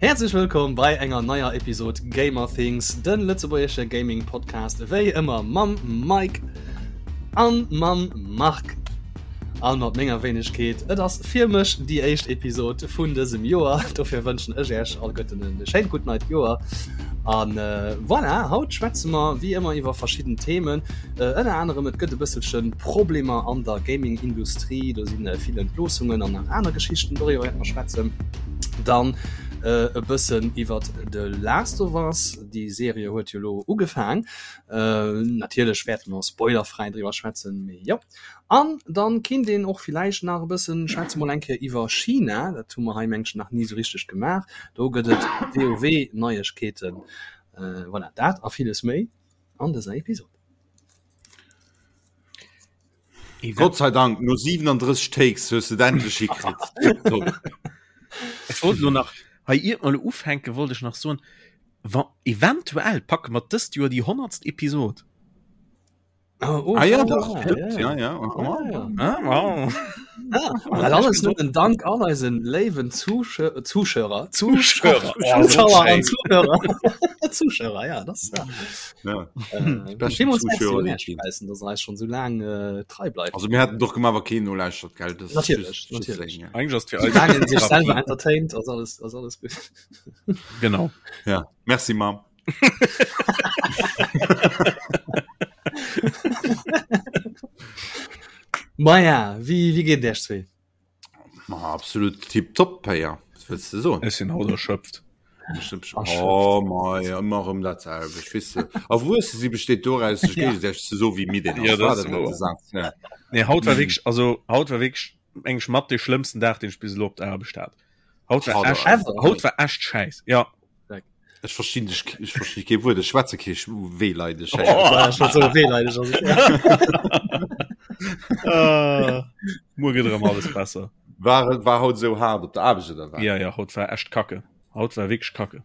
Häerzlech wëllkomm bei enger neier Episod Gamer Things, den lëtzebuergesche Gaming Podcast, wéi ëmmer mam Mike an mam Marc an mat menger Wéinegkeet. Et ass fir mech déi éischt Episod vun dësem Joer, dofir wënschen ech Iech alleguerten e schéint gutt neit Joer. An voilà, haut schwätze mer wéi ëmmer iwwer verschidden Themen. Ënner anerem et gëtt e bësselche Problemer an der Gaming-Industrie, do si vill Entloossungen an nach aner Geschichten, doriwwer wäerte mer schwätzen. Dann e bëssen iwwer The Last of Us, déi Serie huet jo elo ugefaang. Natierlech wäerte mer spoilerfräi driwwer schwätzen, mee jo. An dann kinnt een och villäicht nach e bëssen schwätze mol eng Kéier iwwer China, dat hu mer hei mengen ech nach ni esou richteg gemaach. Do gëtt et WoW-Neiegkeeten. Voilà, dat a villes méi. an dëser Episode. Gott sei Dank, no 37 Takes hues du et endlech hikritt. Tipptopp. Ech wollt lo nach, hei iert mer lo ufänken, wollt ech nach soen, wa eventuell packe mer dëst Joer déi honnertst Episod. Oh, oh, ah, ja, doch, stimmt, ja, ja. Oh, ja. Ah, wow. Ah, dat alles nëmmen dank all eisen léiwen Zuschauer, Zuschauer, Zuschauer an Zuhörer. Zuschauer, ja, das ja. Ja. Äh, Zuschauer, dass eis schon so lang äh, trei bleibt. Also mir hätten doch gemacht, wa keen nolauschtert, gell? Das natürlich, natürlich. Ja. Eigentlich ass fir eis sich selber entertaint, ass alles, ass alles gut. Genau. Ja, merci Mam. Maja, wéi, wéi geet et Iech zwee? Ma absolut tipptopp, Péier. Was wëlls de soen? Ech sinn haut erschöpft. Oh mei, ëmmer erëm dat selwecht, weess de. Erwuesse si besteet doraus, sech géigesäiteg ze soen, wéi midd een ass. Ja, dat ass wouer. Ja. Nee, haut war wierklech, also haut war wierklech eng mat de schlëmmsten Dag, deen ech bis elo op der Aarbecht hat. Haut war echt, haut war echt scheiß. Ja. Ech verstinn dech, ech verstinn kee Wuert, ech schwätze kee Wehleidesch. Oh, Wehleidesch. Muer gëtt erëm alles besser. War, war haut sou haart op der Aarbecht oder wat? Ja, ja, haut war echt kacke. Haut war wierklech kacke.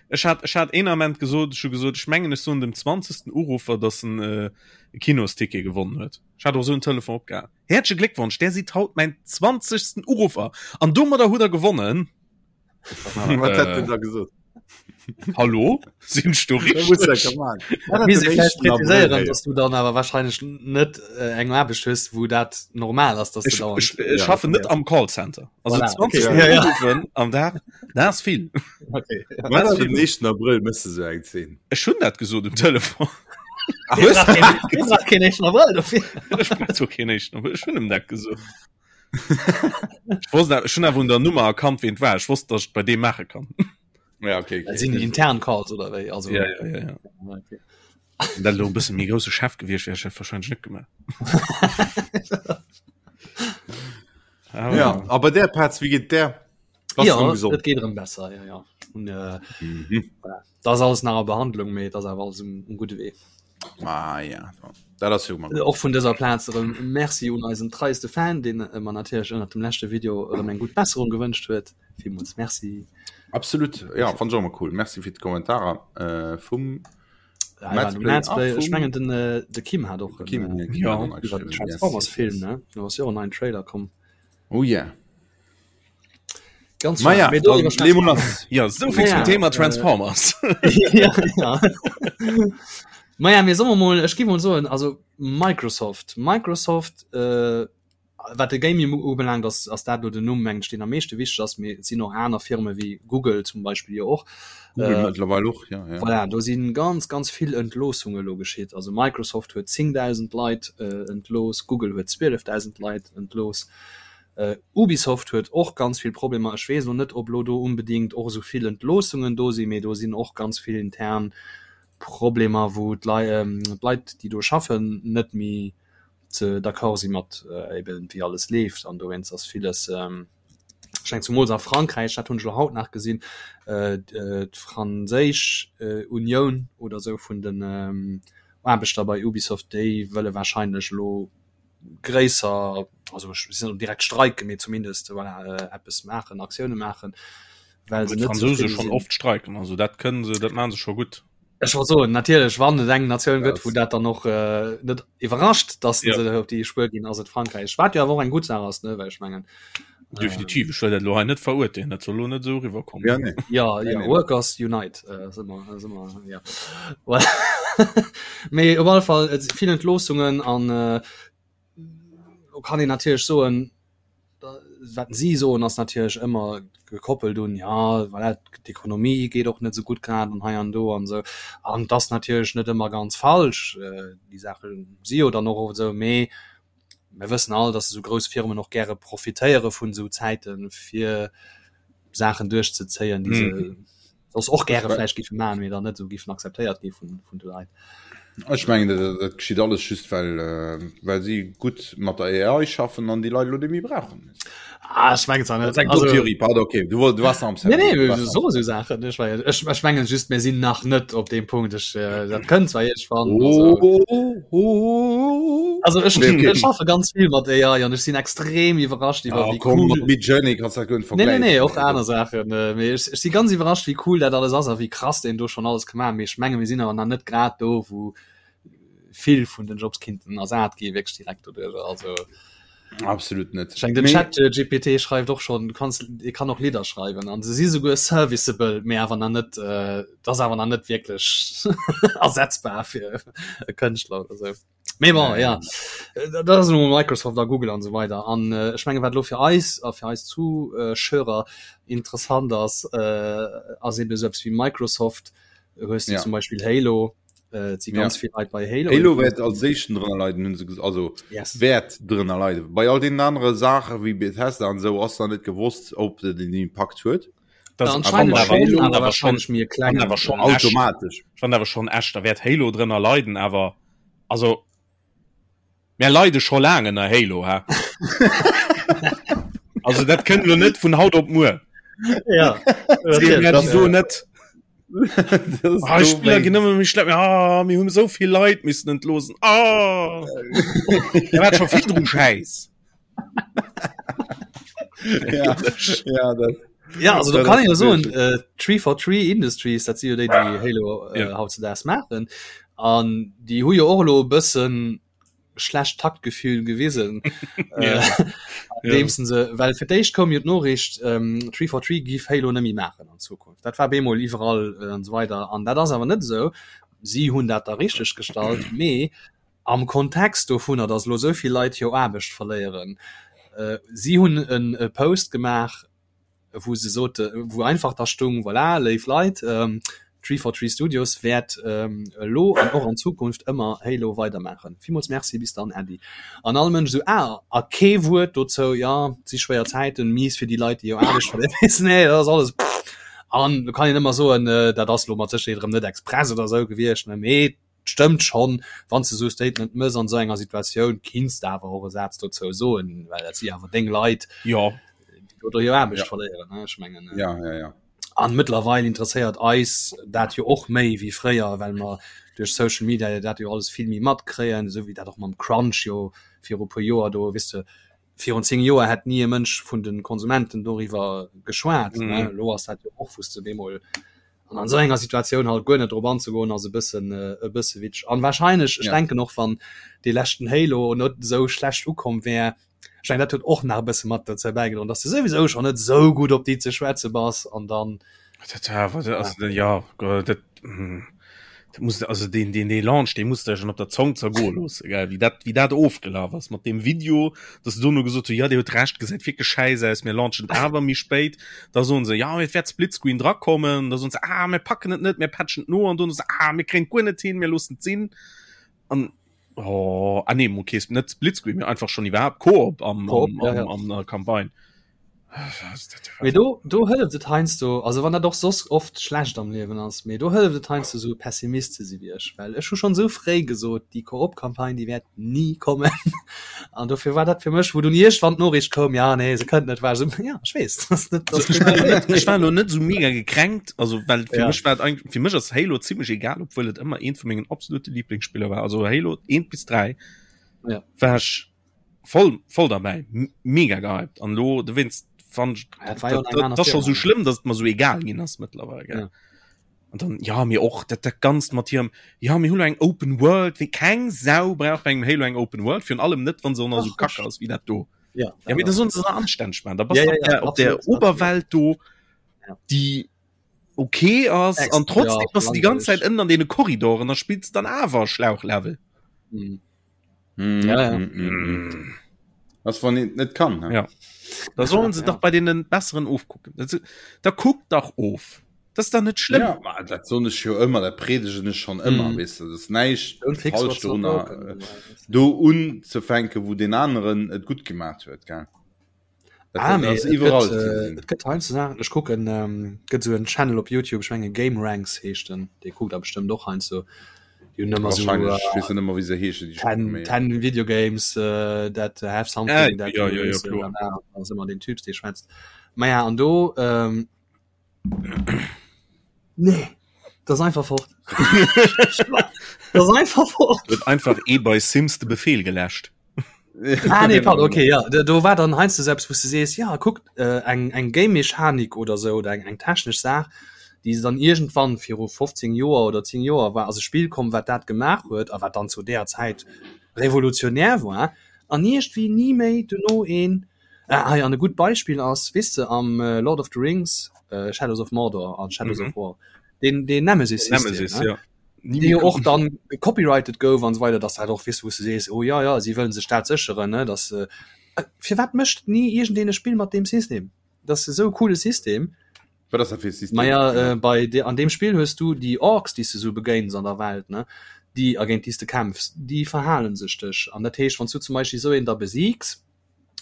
Ech hat, ech hat een Ament gesot, ech hu gesot, ech mengen ech soen dem 20. Uruffer, dass en äh, e Kinosticket gewonnen huet. Ech hat och sou en Telefon opgehaang. Häerzleche Gléckwonsch, där sidd haut mäin 20. Uruffer an domadder hutt der gewonnen. Wat hätt den da gesot? Hallo? Sinn ech do richteg? Präziséieren, dass du dann awer wahrscheinlech net äh, eng Aarbecht hues, wou dat normal ass, dass du Ech, dauernd ech, ech schaffen net am Callcenter. Also Voilà, 20 okay, ja, ja. Uruffen am Dag, dat ass vill. Okay. Wat ass den 1. Abrëll mëss de sou eng Zeen? Ech hunn dat gesot um Telefon. Ach, hues du? Du brauchst keen éischten Abrëll dofir. Ech brauch zwar keen éischten Abrëll, ech hunn em dat gesot. Ech wosst awer, ech hunn awer un der Nummer erkannt, ween et war. Ech wosst, dass ech et bei deem maache kann. Ja, okay, okay. Dat sinn intern Calls oder wéi? Also, Ja, ja, ja, ja. Okay. Wenn dat elo e bësse méi grousse Chef gewiescht wär, hätt ech dat wahrscheinlech net gemaach. Ja, ja a bei där Petz, wéi geet där? Bass ja, erëm gesond? Et geet erëm besser, ja, ja. Und, äh, mhm. voilà. Das ass alles nach a Behandlung, mee dat ass awer alles um, um gudde Wee. Ah, ja. Dat ass jo mal. Och vun dëser Plaz erëm Merci un eisen treiste Fan, deen mer natierlech ënnert dem leschte Video erëm eng gutt Besserung gewënscht huet. Villmools Merci. Absolut, ja, fand ech och emmer cool. Merci fir d'Kommentarer äh, vum Ja, ja, Play, ah, ech mengen den äh, de Kim hat och Kim, äh, ja, ja. Transformers Film ne do ass jo en neien Trailer komm. Oh yeah. Ganz Ma ja, Mee do dann iwwerschwätzen lee mol lass. Ja, so viel zum Ja, Thema äh, Transformers. ja, ja. Maja, mir solle mol, ech gi mol soen, also Microsoft, Microsoft, äh, wat de Gaming ubelaangt, ass, ass dat lo den Numm, mengen ech, deen am meeschte wichteg ass, mee et sinn och aner Firme wéi Google zum Beispill jo och. Google Äh, mëttlerweil och, ja, ja. Voilà, do si ganz, ganz vill Entloossunge lo geschitt. Also Microsoft huet 10.000 Leit äh, entlooss, Google huet 12.000 Leit entlooss. Ubisoft huet och ganz vill Problemer. Ech weess elo net, ob elo do onbedéngt och esou vill Entloossungen do sinn, mee do sinn och ganz vill intern Problemer, wou d'Leit, déi do schaffen, net méi ze d'accord si mat eben wéi alles leeft. An dowéinst ass villes, ech mengen zumools a Frankräich, dat hunn ech elo haut nach gesinn, d'franséisch Unioun oder esou vun den Aarbechter bei Ubisoft, déi wëlle wahrscheinlech elo gréisser, also ech sinn net direkt streiken, mee zumindest voilà, äh, eppes maachen, Aktioune maachen, well se net Fransouse schon oft streiken, also dat kënnen se, dat maachen se scho gutt. Ech wollt soen, natierlech, wann et eng Natioun gëtt, wou dat dann och äh, net iwwerrascht, dass ja. se op déi Spuer ginn, ass et Frankräich. Wat jo awer och eng gutt Saach ass, ne, well ech mengen. Definitiv, ech wëll dat elo hei net verurteelen, dat soll elo net esou eriwwerkommen. Ja, nee. Ja, Nee, ja, nee. Workers Unite, äh, si mer, si mer, ja. Well, mee op alle Fall, et si vill Entloossungen an äh, do kann een natierlech soen, wat si soen ass natierlech ëmmer gekoppelt un, ja, voilà, d'Ekonomie geet och net esou gutt grad an hei an do an esou. An et ass natierlech net ëmmer ganz falsch, äh, déi Saache si jo dann och oft esou, mee mir wëssen all, dass esou grouss Firmen och gäre profitéiere vun esou Zäiten, fir Saachen duerchzezéien, déi se mm. soss och gäre vläicht géife maachen, mee dann net esou géifen akzeptéiert gi vun, vun de Leit. Ech mengen, dat, dat geschitt alles just, well, äh, well si gutt mat der AI schaffen an déi Leit elo net méi brauchen. Ah, ech mengen zwar net. Dat ass eng dumm Theorie, pardon, okay. Du, du warst am Nee, nee, du warst so, so Sachen. Ech, ech, ech mengen just, mir sinn nach net op deem Punkt. Ech, äh, dat kënnt zwar iergendwann. Oh, Also, oh, oh. also ech, Nee, okay. ech schaffe ganz vill mat AI an ech sinn extrem iwwerrascht iwwer Ah, wéi komm, cool. mat Midjourney kannst du dat guer net Nee, nee, vergläichen. nee, och aner Saachen. Äh, mee ech, ech si ganz iwwerrascht, wéi cool dat alles ass a wéi krass deen do schonn alles ka maachen. Mee ech menge mir sinn awer nach net grad do, wou vill vun den Jobs kinnten ersat gi wierklech direkt doduerch. Also Absolut net. ech meng, den Chat äh, GPT schreift och schonn, du kanns, e kann och Lidder schreiwen an se si souguer serviceable, mee awer nach net, äh, dat ass awer nach net wierklech ersetzbar fir e Kënschtler oder sou. Mee bon, ja, dat ass elo Microsoft a Google an esou weider. An äh, ech menge wat elo fir eis a fir eis Zuschauer interessant ass, äh, ass eben esou eppes wéi Microsoft. Hues du Ja. zum Beispill Halo, äh, et si Ja. ganz vill Leit bei Halo. Halo wäert als éischten drënner leiden, hunn se ges also Yes. wäert drënner leiden. Bei all deenen anere Saache wéi Bethesda an esou ass nach net gewosst, ob dat en Impakt huet. Das Anscheinend awer schon, schon, awer awer schon, wahrscheinlech méi e klengen. awer schon echt. Automatesch. Ich fand awer schon echt, da wäert Halo drënner leiden, awer also mir leide scho laang ënner Halo, hä? Also dat kënnt lo net vun haut op muer. Ja, Seet mir das, wieso net? Das Ah, do Spiller ginn wéinst. ëmmer méi schlepp. Ah, mir hunn esou vill Leit missen entloossen. Ah! Da war scho virdru Schäiss. Ja, ja, dat, Ja, also da dat kann ass ich jo soen, wirklich. äh, 343 Industries, dat si jo déi, déi Halo äh, Ja. hautzedaags maachen. An déi hu jo och elo e bëssen schlecht Taktgefühl gewisen. Ja. äh, andeems se, well fir d'éischt koum jo d'Noriicht, ähm, 343 giff Halo net méi maachen an Zukunft. Dat war bemol iwwerall äh, an esou weider. An dat ass awer net esou. Si hunn dat da richteg gestallt, mee am Kontext dovunner, datt elo esou vill Leit hir Aarbecht verléieren, si hunn e Post gemaach, wou se sote, wou einfach da stung, voilà, léif Leit, 343 Studios wäert elo an och an Zukunft ëmmer Halo weidermaachen. Villmools Merci, bis dann, Äddi. An all Mënsch esou, ah, a kee Wuert dozou, jo, et si schwéier Zäiten, mies fir déi Leit, déi hir Aarbecht verléieren. Nee, dat ass alles, pff. An do kann een ëmmer soen, dat ass elo mat Sécherheet erëm net express oder esou gewiescht, ne, mee Stëmmt schonn, wann s de esou e Statement mëss an esou enger Situatioun, kinns de awer och e Saz dozou soen, well dat si awer deng Leit, Jo. déi do hir Aarbecht Ja. verléieren, ne? Ech mengen, Ja, ja, ja. an mëttlerweil interesséiert eis dat jo och méi wéi fréier, well mer duerch Social Media jo dat jo alles vill méi matkréien, esou wéi dat och mam Crunch jo viru puer Joer do, weess de, virun 10 Joer hätt ni e Mënsch vun de Konsumenten doriwwer geschwat, ne? Mhm. Elo ass dat jo och, wou s de bemol An an esou enger Situatioun halt guer net drop anzegoen ass e bëssen e bësse witzeg. An wahrscheinlech, ech Ja. denken och wann dee leschten Halo net esou schlecht ukomm wär, ech mengen dat huet och nach e bësse mat dozou bäigedroen, dass de souwisou schonn net esou gutt op déi ze schwätze bass an dann Dat war awer, also ja, dat dat muss also deen deen dee Launch dee muss der schon op der Zong zergoe loosse gell, wéi dat wéi dat ofgelaf ass mat deem Video, dass se dono gesot hu ja Dir hutt Recht, gesäit wierklech schäiss aus, mir launchen et awer méi spéit. Da soen se ja et wäert Splitscreen drakommen, da soen se ah mir packen et net, mir patchen et no an dono se ah mir kréien et guer net hin, mir loossen et sinn an oh ah nee okay net Splitscreen, mee einfach schon iwwerhaapt Koop am Koop, am ja, ja. am an der Campagne. Mee do, do hëlleft et heiansdo, also wann dat och soss oft schlecht am Liewen ass, mee do hëlleft et heiansdo esou Pessimist ze si wéi ech, well ech hu schonn esou fréi gesot, déi Koop-Campagne déi wäert ni kommen. An dofir war dat fir mech, wou dunn iergendwann d'Noriicht koum, ja nee se kënnt net, war ech esou, ja ech weess, dass net, dass Also, ech war net, ech war lo net esou mega gekränkt, also well fir Ja. mech war et eigentlich, fir mech ass Halo zimmlech egal, obwuel et ëmmer eent vu mengen absolute Lieblingsspiller war, also Halo 1 bis 3 Ja. war ech voll voll dabei mega gehypt an lo du wennst fand Ja, dat war jo eng aner das schon so Firma. schlimm dass man so egal ginn ass mittlerweile gell? Ja. Und dann ja mir och dat dat ganzt mat hirem ja mir hunn eng Open World wéi keng Sau brauch bei engem Halo eng Open World virun allem net wann se och nach so Ach, kacke ass wéi dat do. Ja, ja mee da sollen se se anstänneg maachen. Da bass ja, ja, ja, op der Oberwelt do ja. déi okay ass an trotzdem ja, bass du déi ganz Zäit ënnen an deene Korridoren, da spills dann awer Schlauchlevel. Mhm. Mm, ja, ja. Mm, mm, mm. Was wann een net kann ne? Ja. Da sollen se ja. dach bei deenen besseren ofkucken. Da kuckt dach of. Das ist dann net schlimm. Ja, ma, dat soen ech jo ëmmer, dat predegen ech schon ëmmer, mm. weess du, dat ass näischt falsch dorunner, äh, do unzefänken, wou den aneren et gutt gemaat huet, gell? Dat, ah, dat ass iwwerall. Et gëtt, äh, et gëtt heiansdo Saachen, ech kucken, ähm, gëtt sou en Channel op YouTube, ech menge Game Ranks heescht den, dee kuckt der bestëmmt och heiansdo. Déi hunn ëmmer sou, Wahrscheinlech, ech weess net ëmmer wéi se heeschen, déi 10, 10 Video Games uh, that have something äh, that ja, ja, ja, kloer. ass ëmmer den Typs, dee schwätzt. Maja, an do, ähm, Nee, das ist einfach fort. das ist einfach fort. Huet einfach ee bei Sims de Befehl geläscht. Ah, nee, pardon, okay, ja. Do, do war dann heiansdo selbst, wou du sees, ja, kuck, äh, eng, eng Game-Mechanik oder so, oder eng, eng technesch Saach, déi se dann irgendwann viru 15 Joer oder 10 Joer war, ass e Spill komm, wat dat gemaach huet, a wat dann zu där Zäit revolutionär war, an iergendwéi ni méi duerno een Ah, hei an e gutt Beispill ass, weess de, am äh, Lord of the Rings, äh, Shadows of Mordor an Shadows mm -hmm. of War, den, den Nemesis, Nemesis ne? ja. Dee jo och dann gecopyrighted gouf an so weiter, dass dat och weess, wou du sees, oh ja, ja, si wëllen sech dat sécheren, ne, dass äh, firwat mécht ni iergendeen e Spill mat deem System? Dat ass esou e coole System. Wat ass dat fir e System? Maja, äh, bei de, an deem Spill hues du déi Orks, déi s du sou begéins an der Welt, ne, déi a géint déi s de kämpfs, déi verhalen sech dech. An dat heescht, wann s du zum Beispill esou een da besiigs,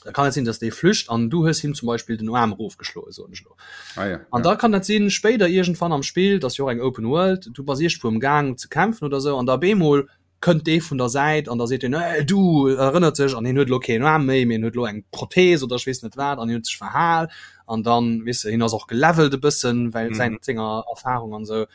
da kann et sinn, dass dee flücht an du hues him zum Beispill den Aarm erofgeschloen, soen ech elo. Ah, ja, an da kann dat sinn, spéider iergendwann am Spill, dat ass jo och eng Open World, du bass iergendwou am Gaang ze kämpfen oder sou an da op eemol kënnt dee vun der Säit an da seet en, Hey, du! Erënnert sech an hien huet elo keen Aarm méi, mee en huet elo eng Prothees oder ech weess net wat an hien huet sech verhal an dann, weess de, hien ass och gelevelt e bëssen, well säin, senger Erfarung an sou.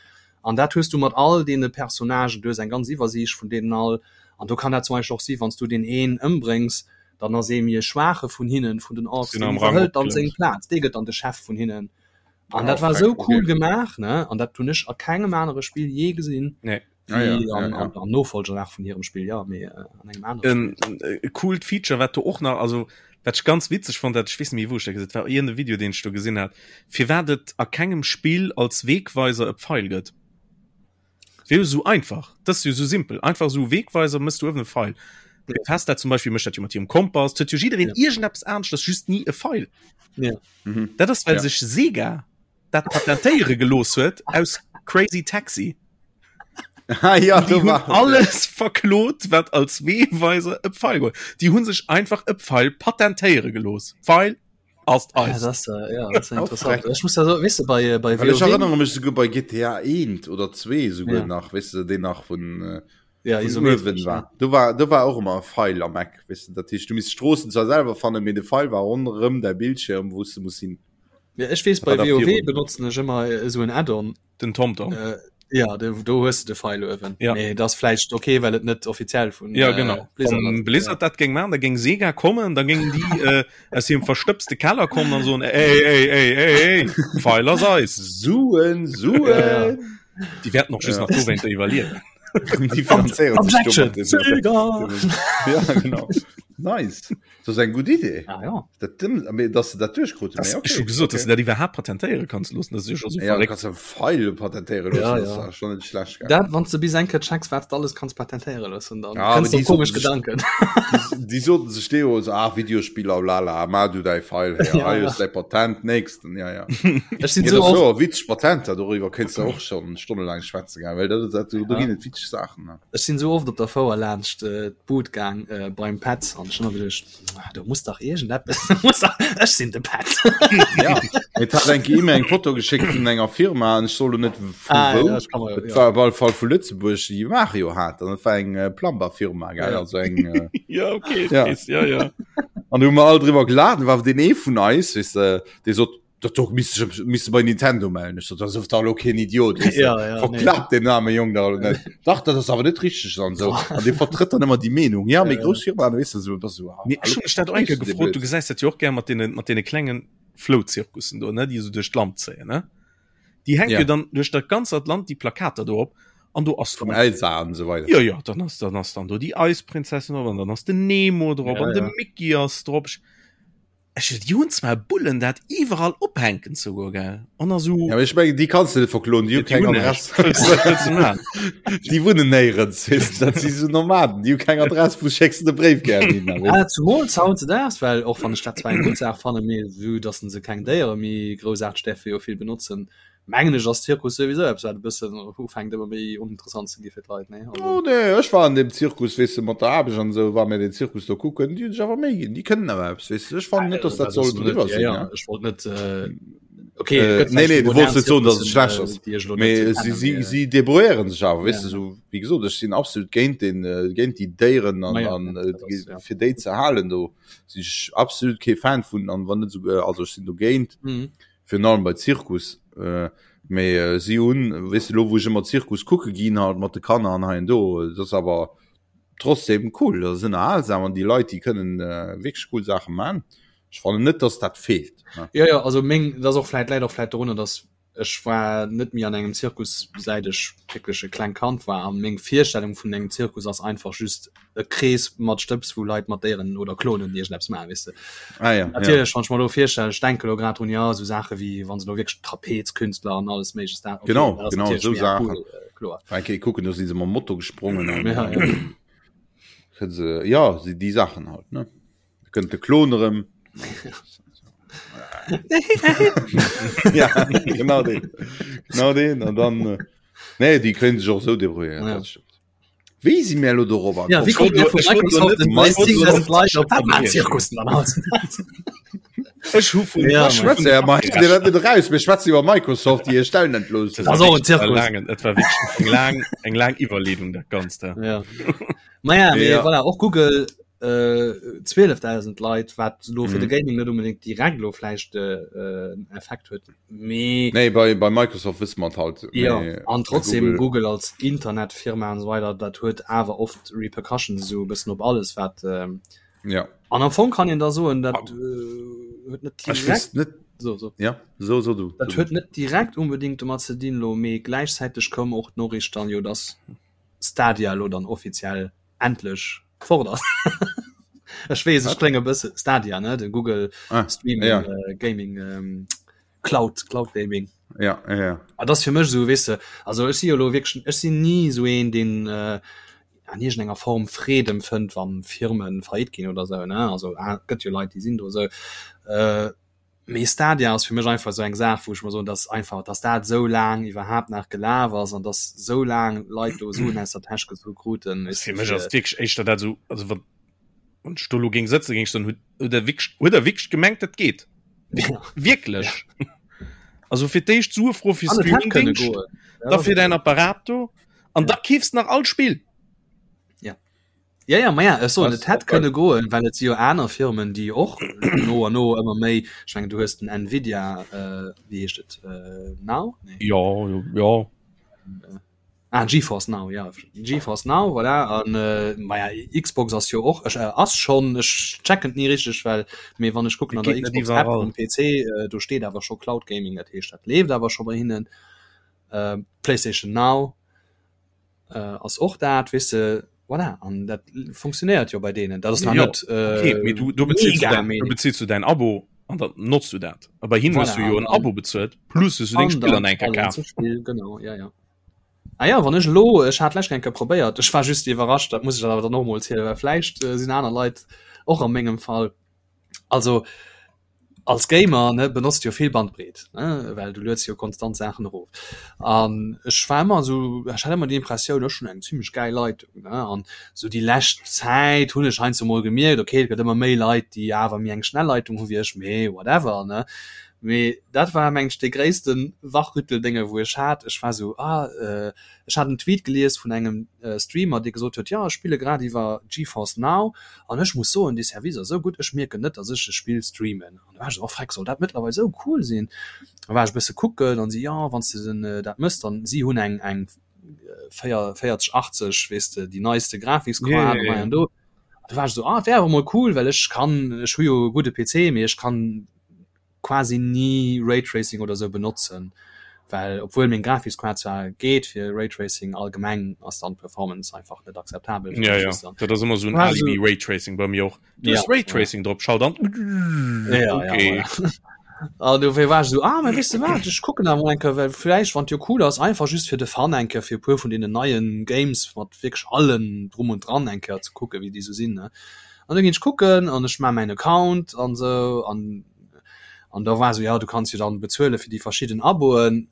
An dat hues du mat all deene Personnagen, du hues eng ganz Iwwersiicht vun deenen all an do kann dat zum Beispill och si wann s du deen een ëmbréngs, dann ass ee méi e schwaache vun hinnen, vun den Orks, deen iwwerhëlt dann seng Plaz, dee gëtt dann de Chef vun hinnen. An dat war esou cool gemaach, ne? An dat hunn ech a kengem anere Spill jee gesinn. Nee. Ah, ja, ja, ja. Am Nofolger nach vun hirem Spill, ja, mee an engem anere Spill. E coolt Feature, wat do och nach, also wat ech ganz witzeg fonnt hat, ech weess net méi wou ech dat gesinn, et war iergend e Video deen ech do gesinn hat, firwat et a kengem Spill als Wegweiser e Pfeil gëtt. Wier jo sou einfach, dat ass jo sou simpel, einfach sou Wegweiser, mëss du uewen e Pfeil. Bethesda zum Beispill mécht dat jo mat hirem Kompass, et huet jo jiddereen ja. iergendeppes aneschters, just ni e Pfeil. Ja. Mhm. Dat ass well ja. sech Sega dat patentéiere gelooss huet aus Crazy Taxi. Ah, ja, die hunn alles verklot, wat als Wegweiser e Pfeil gouf. Die hunn sech einfach e Pfeil patentéiere gelooss. Pfeil ass ja, eis. Das, äh, ja, das ist interessant. Ich muss da so, weißt du, bei, äh, bei Well ech erinnere mech souguer bei GTA 1 oder 2 souguer ja. nach, weißt du, den nach vun äh, ja, vun uewen war. Do war do war och ëmmer e Pfeil am Eck, weißt du, dat heescht du misst d'Stroossen zwar selwer fannen, mee de Pfeil war ronderëm däi Bildschirm, wou s du muss hin. Ja, ech weess bei WoW benotzen ech ëmmer esou en Add-on. Den TomTom. Äh, ja, do, do hues du de Pfeil uewen. Ja. Nee, das vläicht okay, well et net offiziell vun ja, genau. äh, Blizzard, Wann Blizzard ja. dat géing machen, da géing Sega kommen, da géingen déi äh, aus hirem verstëbste Keller kommen an soen, ey, ey, ey, ey, ey, Pfeil ass eis. Suen, Suen. Ja, ja. Déi wäerten och just ja. nach dowéinter iwwerliewen. Déi finanzéieren sech Objection! Sega! Ja, genau. Nice. Dat ass eng gutt Idee. Ah, ja. Dat dëmm, mee dass se dat duerchkruten. Das, Mee okay, ech hu gesot, okay. dass du dat iwwerhaapt patentéiere kanns loossen, dat ass jo scho sou Ja, du verréckt. kanns e Pfeil patentéiere loossen, Ja, dat ja. ass schon net schlecht, gell? Dat, wann s de bis eng Kéier checks, wat s de alles kanns patentéiere loossen, dann Ja, awer kënns de déi op komesch soten sech, Gedanken. déi, déi soten sech deemools, ah, Videospiller, blala, ma du däi Pfeil her, Ja, hei ja. hues däi Patent, nächsten, ja, ja. Ech sinn Ja, sou dat ass oft, jo witzeg Patenter, doriwwer kéints de och schon stonnelaang schwätzen, gell, well dat, dat, do ja. ginn et witzeg Saachen, ne? Ech sinn sou oft op der Fouer laanscht d'Bud gaang beim Petz an ech hunn ëmmer geduecht, ah, do muss dach iergendeppes, muss dach, ech sinn de Petz. Ja, et hat eng Kéier eng Foto geschéckt vun enger Firma an ech soll lo net vu Ah, wou, ja, ech kann mer, et ja. war op alle Fall vu Lëtzebuerg, déi Mario hat an et war eng Plumber-Firma, gell, Ja. also eng, Ja, okay, ech ja. weess, ja, ja. An do hu mer all driwwer gelaacht, an war deen ee vun eis, weess de, dee sot, Dat do misst ech misst bei Nintendo mellen. Ech sot, dat ass dach lo keen Idiot. Weißt du? Ja, ja, nee. Verklappt den arme Jong da net. Dach, dat ass awer net richteg an sou. An dee vertrëtt dann ëmmer déi Meenung. Ja, méi grouss Firmaen, weess de, sou, bass sou, ah, Mee ech hu mech dat och eng Kéier gefrot, du gesäis dat jo och gär mat deene, mat deene klengen Flouzirkussen do, ne, déi esou duerch d'Land zéien, ne? Déi hänke Ja. jo dann duerch dat ganzt Land déi Plakater do op an do ass Vum dann Elsa an esou weider. Jo, jo, dann ass, dann ass dann do déi Eisprinzessin drop an dann ass den Nemo drop Ja, an de ja. Mickey ass drop. Ech déi hunn zwar Bullen dat iwwerall ophänken souguer gell an a sou. Ja, ech mengen déi kanns de net verkloen, déi hu keng Adress. Déi wunnen néierens, weess de, dat si sou Nomaden, déi hu keng Adress, wou schécks de de Bréif gär hin? Ah, zumools hautdesdaags, well och wann ech dat zwar eng gutt Saach fannen, mee vue dass se keng Déiere méi groussaarteg däerfe jo vill benotzen, Mengen ech ass Zirkus souwisou eppes wat e bëssen ufänkt ëmmer méi oninteressant ze gi fir d'Leit, nee? Also. Oh nee, ech war an dem Zirkus, weess de, mat der Aarbecht an esou, war mir den Zirkus do kucken, déi hunn sech awer Méi ginn, déi kënnen awer eppes, weess de. Ech fannen net, dass dat soll driwwer sinn, ja. Ech wollt net, okay, et gëtt Nee, nee, du wollts net soen, dass et schlecht ass, mee si, si, si débrouilléieren sech awer, weess de, esou, wéi gesot, ech sinn absolut géint den, géint déi Déieren an, an fir déi ze halen, do sinn ech absolut kee Fan vun an wann net esouguer, also ech sinn dogéint. Virun allem bei Zirkus. Mee si hunn, weess de, elo wou ech ëmmer Zirkus kucke ginn halt mat de Kanner an hei an do, et ass awer trotzdem cool, dat ass ënnerhalsam an déi Leit, déi kënnen wierklech cool Saache man. Ech fannen net, dass dat feelt. Jo, jo, also meng, dat ass och vläit, läit och vläit dorunner, dass ech war net méi an engem Zirkus säit ech wierklech e klengt Kand war an meng Virstellung vun engem Zirkus ass einfach just e Krees mat Stëbs wou Leit mat Déieren oder Klonen iergendeppes maachen, weess de. Ah, ja, Natierlech, ja. wann ech mer elo virstellen, ech denke lo grad drun, jo, esou Saache wéi wann se lo wierklech Trapezkünstler an alles Méigleches dat, okay, Genau, dat ass genau, natierlech esou méi Saachen. cool, äh, kloer. Eng Kéier kucken, do si se mam Moto gesprongen an Ja, ja. kënne se, ja, si déi Saachen halt, ne. Da kënnt de Klon erëm. Ja, genau deen. Genau deen. An dann, äh, nee, déi kréien sech och esou débrouilléiert, Ja. dat stëmmt. Wéi si mir elo dorobber Ja, wéi komm? kommt der vu Microsoft den 10.000 Leit op Batman-Zirkussen dann halt? Ech hu vun Ja, schwätze ja, ma dir dat net eraus, mir schwätzen iwwer Microsoft, déi hir Stellen entloossen. Das ass och en Zirkus. Langen, et war wierklech eng laang, eng laang Iwwerleedung dat Ganzt. Ja. Ja. Maja, mee Ja. voilà, och Google äh, 12.000 Leit, wat lo fir de Mhm. Gaming net unbedingt direkt lo vläicht äh, äh, en Effekt huet. Mee Nee, bei, bei Microsoft wësse mer et halt. Ja, Mee an bei trotzdem Google, Google als Internetfirma an esou weider, dat huet awer oft Repercussions esou e bëssen op alles wat ähm, ja. an am Fong kann een da soen, dat äh, huet net Ech direkt weess net, so, so. ja, so, so du, Dat so du. huet net direkt unbedingt domat ze dinn lo, mee gläichzäiteg koum och d'Noriicht dann jo, dass Stadia lo dann offiziell endlech fort ass. Ech weess, ech Wat? klénge bësse Stadia, ne, de Google Ah, Streaming ja. äh, Gaming ähm, Cloud, Cloud Gaming. Ja, ja, ja. Ah, das fir mech so weess de, also ech si jo lo wierklech, ech sinn ni esou een, deen äh, an iergendenger Form Freed empfënnt, wann Firmen faillite ginn oder sou, ne, also ah, gëtt jo Leit, déi sinn do esou. Äh, mee Stadia ass fir mech einfach esou eng Saach, wou ech mer soen, dass einfach, dass dat esou laang iwwerhaapt nach gelaf ass an dass esou laang Leit do Suen aus der Täsch gezu kruten, weess Fir de, mech ass fir et wierklech éischter dat esou, also wann wann ech do elo géing sëtzen, géing ech soen, hutt hutt der wierklech hutt der wierklech gemengt, dat geet? Ja. Wierklech? Also fir d'éischt Sue froe fir An et hätt kënne Streamingdéngscht, goen. Dat da ass fir et däin jo. Apparat do an Ja. da keefs de nach all Spill. Ja. Ja, ja, ma ja, ech soen, Das et hätt och geil. kënne goen, well et si jo aner Firmen, déi och no an no ëmmer méi, ech mengen, du hues den Nvidia, äh, wéi heescht et, äh, Now? Nee. Jo, jo, jo. Ah, GeForce Now, ja, GeForce Now, voilà. An äh, ma ja, Xbox ass jo och, ech, äh, ass schon, ech checken et ni richteg, well, mee wann ech kucken Et an der geet net Xbox App iwwerall. um PC, äh, do steet awer scho Cloud Gaming, dat heescht, dat leeft awer scho bei hinnen. Äh, PlayStation Now äh, ass och dat, weess de, voilà, an dat funktionéiert jo bei deenen. Dat ass nach Jo, net okay, äh, mee du, du bezils du mega, däin, mee du bezils du däin Abo an dann notzt du dat. A bei hinnen hues voilà, du jo an en dann Abo bezuelt, plus hues du deng An Spiller dann nach eng Kéier allen kaf. ze Spill, genau, ja, ja. Ah ja, wann ech elo, ech hat d'lescht eng Kéier probéiert, ech war just iwwerrascht, dat muss ech awer dann och mol zielen, well vläicht äh, sinn aner Leit och a mengem Fall. Also als Gamer ne, benotzt jo vill Bandbreet, ne, well du lueds jo konstant Saachen erof. An ech war ëmmer esou, ech hat ëmmer déi Impressioun, ech hunn eng zimmlech gäil Leitung, ne. An esou déi lescht Zäit hunn ech heiansdo mol gemierkt, okay, et gëtt ëmmer méi Leit, déi awer méi eng schnell Leitung hu wéi ech, mee whatever, ne. Mee dat war mengen ech dee gréissten Wachrütteldénge wou ech hat. Ech war sou, ah, ech hat en Tweet gelies vun engem Streamer dee gesot huet, jo ech spille grad iwwer GeForce Now an ech muss soen dee Service ass sou gutt, ech mierken net dass ech e Spill streamen. An da war ech sou, oh freck, soll dat mëttlerweil sou cool sinn? Da war ech e bësse kucken an si, jo wann s de den dat mëss dann, si hunn eng eng 4080 weess de, déi neiste Grafikskaart an hei an do. Da war ech sou, ah et wär awer mol cool, well ech kann, ech hu jo e gudde PC, mee ech kann quasi ni Raytracing oder sou benotzen. Well obwuel meng Grafiskaart zwar geet fir Raytracing, allgemeng ass dann d'Performance einfach net akzeptabel. Ja, ja. Dat ass ëmmer sou en Alibi Raytracing bei mir och. Du hues Raytracing drop, schalt an. Ja, okay. ja, voilà. An dofir war ech esou, ah, mä weess de wat, ech kucken awer mol eng Kéier, well vläicht, wann et jo cool ass, einfach just fir de Fun eng Kéier fir e puer vun deenen neien Games mat wierklech allem drum und dran eng Kéier ze kucken, wéi déi sou sinn, ne. An da ginn ech kucken an ech maache mäin Account an esou an an da war esou, ja, du kanns jo dann bezuele fir déi verschidden Aboen,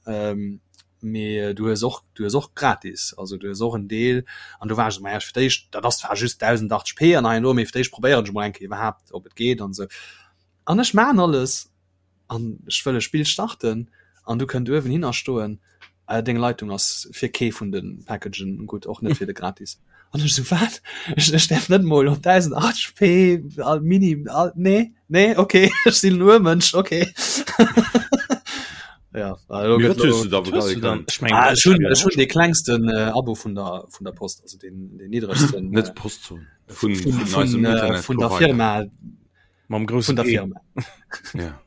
mee du hues och, du hues och gratis, also du hues och en Deel. An do war ech esou, ma ja, fir d'éischt, dat ass zwar just 1080p an hei an do, mee fir d'éischt probéieren ech mol eng Kéier iwwerhaapt, ob et geet an esou. An ech maan alles an ech wëll e Spill starten an du kënnt uewen hinner stoen, äh, deng Leitung ass fir kee vun de Packagen gutt, och net fir de gratis. An ech sou, wat? Ech, ech däerf net mol op 1080p all mini, all, nee, nee, okay, ech sinn en Urmënsch, okay. Ja, also Mee wat hues du da bezuele können? Ech mengen, ah, ech hunn, ech hunn dee klengsten äh, Abo vun der, vun der Post, also den, den niddregsten. Net Postzon, vun, vun, vun, vun, äh, vun der Firma. Mam groussen vun der Firma. Ja.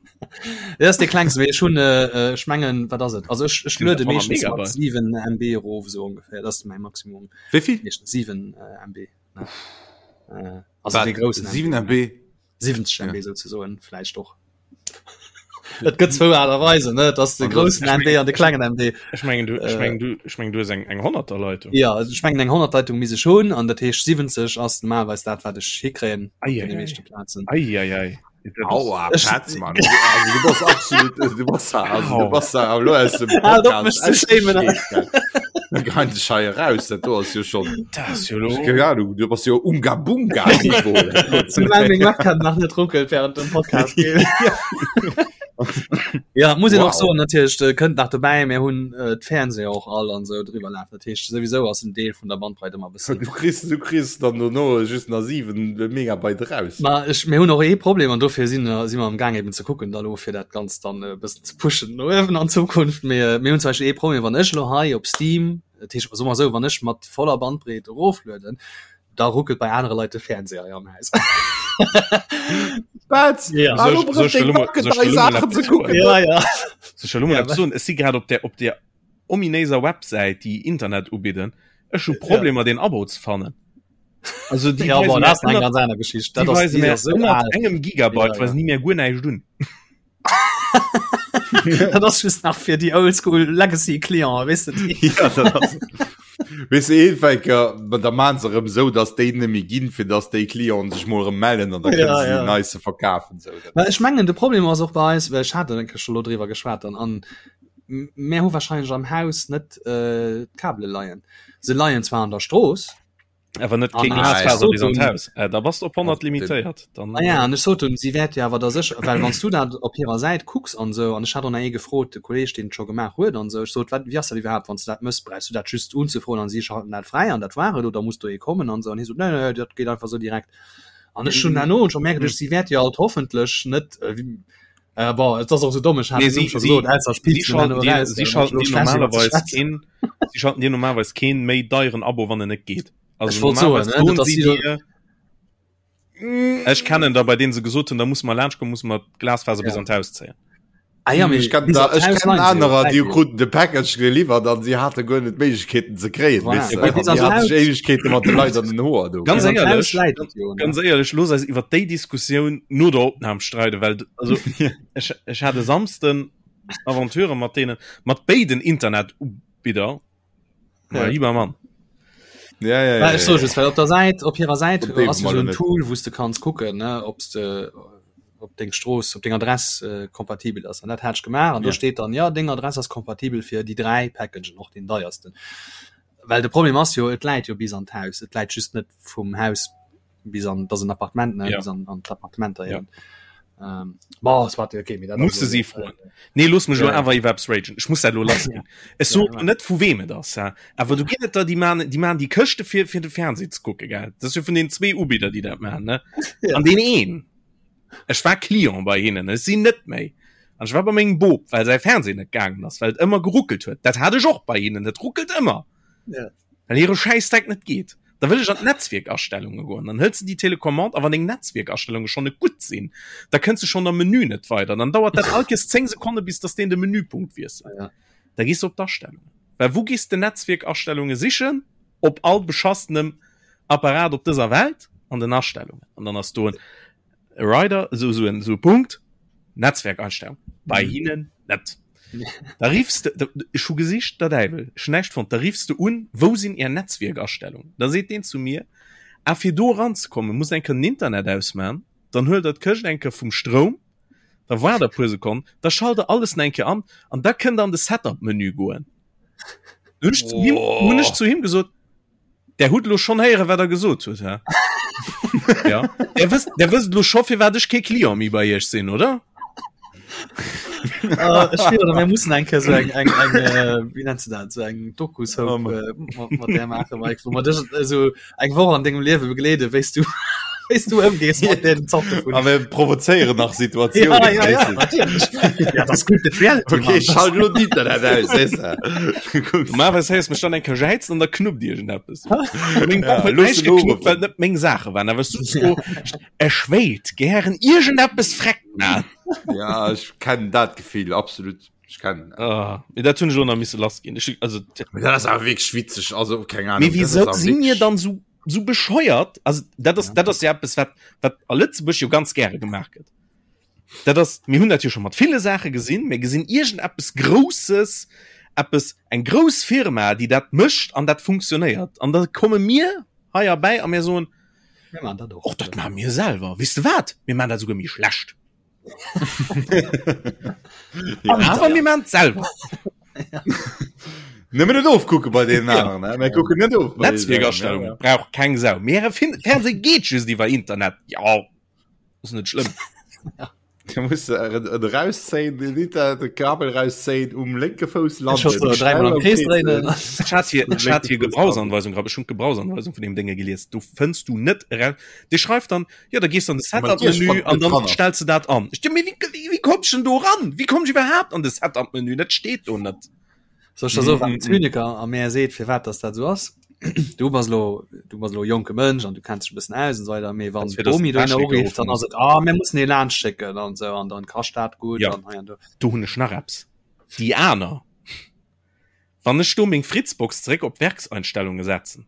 Dat ass dee klengsten, mee ech hunn, äh, ech mengen, wat ass et? Also ech, ech luede meeschtens mat 7 MB erof, esou ongeféier. Dat ass mäi Maximum. Wéi vill? Meeschtens 7 äh, MB. Ne? Äh, also Wat? dee groussen 7 MB? 70 MB ja. souzesoen, vläicht och. Et gëtt zwou Aart a Weisen, ne? Et ass de groussen MB an de klengen MB. Ech mengen, du, ech mengen, du, ech mengen, du hues eng, eng Honnerterleitung. Ja, also ech mengen eng Honnertleitung misst ech hunn, an dat heescht 70 ass normalerweis dat, wat ech hikréien op deene meeschte Plazen. Ei, ei, ei. Aua, Petz, Mann. Also, du bass absolut, du bass da, also, du bass da elo aus dem Halt op, mech ze shamen. Da gein dech hei eraus, dat do ass jo schon. Dat ass jo lo. Keng Ahnung, du bass jo Unga Bunga Niveau. Soulaang meng Webcam nach net ruckelt während dem Podcast. Ja, muss een och soen, natierlech äh, kënnt nach dobäi, mir hunn äh, d'Fernseher och all an sou driwwer lafen. Dat heescht souwisou ass en Deel vun der Bandbreit ëmmer bëssen. Du kriss, du kriss dann dono just nach 7 Megabyte raus. Ma ech, mir hunn och ee Problem an dofir sinn si mer am Gaang eben ze kucken da lo fir dat Ganzt dann e bëssen ze pushen no uewen an Zukunft. Mee mir hunn zum Beispill ee Problem, wann ech lo hei op Steam, dat heescht soe mer esou, wann ech mat voller Bandbreet eroflueden, da ruckelt bei anere Leit de Fernseher hei am Haus. Wat? Ja. Ah, lo brauch deng Backe dei Saachen ze kucken. Ja, ja. Soll ech elo mol eppes soen? Ech si grad op der op der ominéiser Websäit, déi Internet ubidden. Ech hu Problemer, deen Abo ze fannen. Also déi Ja, weisen bon, mir dat ass eng ënnert- ganz aner Geschicht. déi Dat ass, weisen déi mir ass sou ënnert al. engem Gigabyte Ja, weisen ja. déi mir guer näischt un. Dat ass just nach fir déi Oldschool Legacy Clienten, weess de, déi. Ja, dat ass. Weess de, eenfäker, ma da maan se erëm esou, dass déi net méi ginn, fir dass déi Clienten sech mol erëm mellen an da kënnen Ja, se déi ja. nei ze verkafen. Sou, dat Well ech mengen, de Problem ass och bei eis, well ech hat eng Kéier scho lo driwwer geschwat an, an mär hu wahrscheinlech am Haus net äh, d'Kabele leien. Se leien zwar an der Strooss, Awer net An keng ech Glasfaser bis an sot d'Haus. Äh, da bass de op 100 limitéiert. Dann, Ah ja, an ech sot hunn, si wäert jo awer da sécher, well wann s du dat op hirer Säit kucks an esou, an ech hat och nach ee gefrot, de Kolleeg, deen et scho gemaach huet an esou, ech sot, wat, wéi ass dat iwwerhaapt, wann s du dat mëss, brauchs du dat just unzefroen an si schalten dat fräi an dat war et, oder muss do ee kommen an esou, an hie sot, nee, nee, dat geet einfach esou direkt. An ech hunn herno scho mär geduecht, si wäert jo alt hoffentlech net, äh, bon, et ass och esou domm, ech hat Nee, den Numm si, scho si, gesot, ausser ech si piipsen schalten herno dir, eraus, si well ech schalten elo dir schlecht iwwer ze normalerweis schwätzen. keen, si schalten dir normalerweis keen méi deieren Abo, wann en net geet. Ech Also wollt soen, normalerweis ne, soen net dass si si do, dir, ech kennen der, bei denen se gesot hunn, da muss mer laanscht kommen, muss mer d'Glasfaser bis ja. an d'Haus zéien. Ah ja, mee Ech kennen bis da, an ech d'Haus kennen leien se jo, anerer, läit déi jo. kruten de Package geliwwert an si hate guer net d'Méiglechkeeten ze kréien, Voilà, weess de. mee bis An an déi hate d'Haus, sech Éiwegkeete mat de Leit an den Hoer do. Ganz bis an d'Haus éierlech, läit et jo, ne? ganz éierlech, looss eis iwwer déi Diskussioun no der Opnam streiden, well also ech, ech hat e Samsden Aventure mat deenen, mat béiden Internetubidder. Ja. Lieber Mann. Ja, ja, ja, ja, ech so ja. just, well op der Säit, op hirer Säit Op déi ass jo mal so en net. Tool, wou s de kanns kucken, ne, ob s de op deng Strooss, op deng Adress äh, kompatibel ass. An dat hat ech gemaach an do Ja. steet dann, ja, deng Adress ass kompatibel fir déi 3 Packagen, och deen deiersten. Well de Problem ass jo, et läit jo bis an d'Haus, et läit just net vum Haus bis an, dat ass en Appartement, ne, Ja. bis an, an d'Appartementer Ja. eben. Ähm, bon, soit, okay, mee dat ass Musse elo si net, froen. äh, Nee, looss mech ja, elo ja. awer iwwer eppes ragen. Ech muss dat elo lass ginn. Ech Ja, soen ja. net vu wem et ass, hä? Awer do ginn et der, déi man, déi man déi Këschte fir, fir de Fernseh ze kucke, gell? Dat ass jo vun den zwee Ubidder, déi dat man, ne? Ja. An deen een, ech war Client bei hinnen, ech sinn net méi. An ech war bei mengem Bop, well säi Fernseh net gaangen ass, well et ëmmer geruckelt huet. Dat hat ech och bei hinnen, et ruckelt ëmmer. Ja. Well hire Schäissdreck net geet. Da wëll ech an d'Netzwierkastellunge goen. Dann hëls de déi Telecommande a wann deng Netzwierkastellunge schonn net gutt sinn, da kënns de schonn am Menü net weider. Dann dauert dat all Kees 10 Sekonne bis dass deen de Menüpunkt wiesselt. Ja. Da gees de op d'Astellungen. Well wou gees de Netzwierkastellunge sichen? Op all beschassenem Apparat op dëser Welt? An den Astellungen. An dann ass do en Rider, esou esou en esou e Punkt, Netzwerkeinstellung. Bei hinnen net. Da riffs de, da, ech hu gesicht, der Däiwel, ech hunn näischt fonnt. Da riffs de un, wou sinn Är Netzwierkastellungen? Da seet deen zu mir, ah fir do eranzekommen, muss eng Kéier den Internet ausman, dann huelt der d'Këscht eng Kéier vum Stroum, da waart der e puer Sekonnen, da schalt der alles nach eng Kéier an an da kënnt der an de Setup-Menü goen. Hunn ech zu him, hunn ech zu him gesot, Der hutt lo schonn héieren, wat der gesot hutt, hä? Ja. Der wësst, der wësst lo scho, firwat ech kee Client méi bei Iech sinn, oder? Uh, ech spieren, mir mussen eng Kéier so eng, eng, eng äh, wéi nennst du dat, so eng Doku-Soap äh, mat, mat där maachen, Mike, wou mer dech also eng Woch an dengem Liewe begleeden, wéi s du wéi s du ëmgees mat deenen Zorte vun. A mir provozéieren nach Situatiounen. Ja, ja, ja, natierlech. Ja, dat ass gutt Reality, Okay, Mann. schalt lo d'Internet aus, sees de. Normalerweis héiers mech dann eng Kéier jäizen an da knuppt iergendeppes. Meng Ja, Bomm huet looss näischt en geknuppt, uruffen. well et net meng Saache waren. Awer ech sot so, ech wéilt gären iergendeppes freck man. Ja, ech kennen dat Gefill, absolut. Ech kennen dat. Ah, mee dat hunn ech elo nach misse lass ginn. Ech, also, Mee dat ass awer wierklech witzeg, also keng Ahnung. Mee dat ass wieso awer si mir wierklech- dann so, so bescheuert? Also, dat ass, Ja. dat ass ja eppes, wat, wat a Lëtzebuerg jo ganz gäre gemaach gëtt. Dat ass, mir hunn dat jo scho mat ville Saache gesinn, mir gesinn iergendeppes Grousses, eppes, eng grouss Firma, déi dat mécht an dat funktionéiert. An da komme mir hei erbäi a mir soen, Mir maachen dat och. Och dat maache mir selwer. Weess de wat? Mir maachen dat esouguer méi schlecht. Ja. Awer mir maachen et selwer. Nëmmen net ofkucke bei deenen aneren, ne? Mir kucken net of. bei deenen Netzwierkastellung aneren, brauch keng Sau. Mee äre Fin Fernseh geet just iwwer Internet. Jo, ass net schlëmm. Ja. Da muss du et erauszéien, den Internet, de Kabel erauszéien, um lénke Fouss Ech landen. so dreimal am Krees dréinen. Ech hat hier, ech hat hier Gebrauchsanweisung grad, ech hunn d'Gebrauchsanweisung vun deem Dénge gelies. Du fënns du net eraus. Dee schreift dann, jo, da gees du an de Setup-Menü an dann stells du dat an. Ech denke mir, wéi, wéi komm ech denn do ran? Wéi komm ech iwwerhaapt an de Setup-Menü? Dat steet do net. Soll ech der soen, wat den Zyniker a mär seet, firwat dass dat esou ass? Du bass elo, du bass elo e jonke Mënsch an du kenns dech e bëssen aus an esou weider, mee wann Fir dass d'Bomi den dohinner Techniker urifft, dann ruffen ass et, ah, mir mussen ee laanscht schécken an esou an dann kascht dat gutt Ja. an hei an do. Do hunn ech nach eppes. Déi aner, wann ech do meng Fritzbox zeréck op Werkseinstellunge setzen,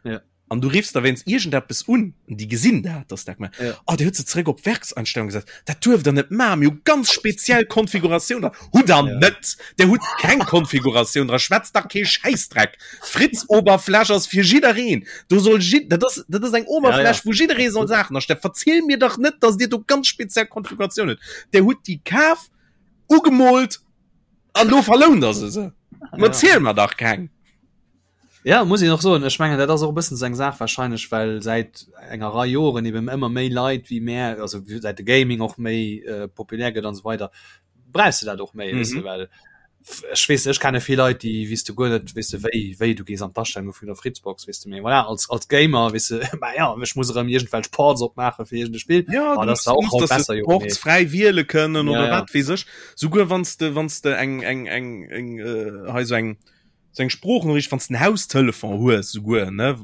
Ja. an du riffs da wéinst iergendeppes un, an déi gesinn dat, dass dat gemaach Ja. Oh, Dir hutt se zeréck op Werkseinstellung gesat. Dat duerft Der net maachen. Mir hu ganz speziell Konfiguratioun dran. Hutt Der Ja. net! Der hutt keng Konfiguratioun dran. Schwätzt dach kee Schäissdreck. D'Fritz-Oberfläch ass fir jiddereen. Do soll jid-, dat ass, dat ass eng Oberfläch, Ja, ja. wou jidderee soll Saachen astellen. Verziel mir dach net, dass Dir do ganz speziell Konfiguratioun hutt. Der hutt déi kaf, ugemoolt an lo verlount Der se se. Ja. Erziel mer dach keng! Ja, muss een och soen. Ech mengen, dat ass och e bëssen esou eng Saach wahrscheinlech, well säit enger Rei Joren eben ëmmer méi Leit wéi mär, also säit de Gaming och méi äh, populär gëtt an esou weider, brauchs de dat och méi, weess de, Mhm. well ech weess, ech kenne vill Leit, déi weess de guer net, weess de, wéi wéi du gees an d'Astellunge vun der Fritzbox, weess de, mee voilà, als als Gamer, weess de, ma ja, ech muss erëm iergendwelch Ports opmaache fir iergend e Spill, Ja, ah, du dat ass musst, da du och musst haut dass du besser, jo, Ports mee fräi wiele kënnen ja, oder ja. wat weess ech. Souguer wann s de wann s de eng eng eng eng äh, hei sou eng sou eng Sproochnoriicht, wann s de en Haustelefon hues souguer, ne?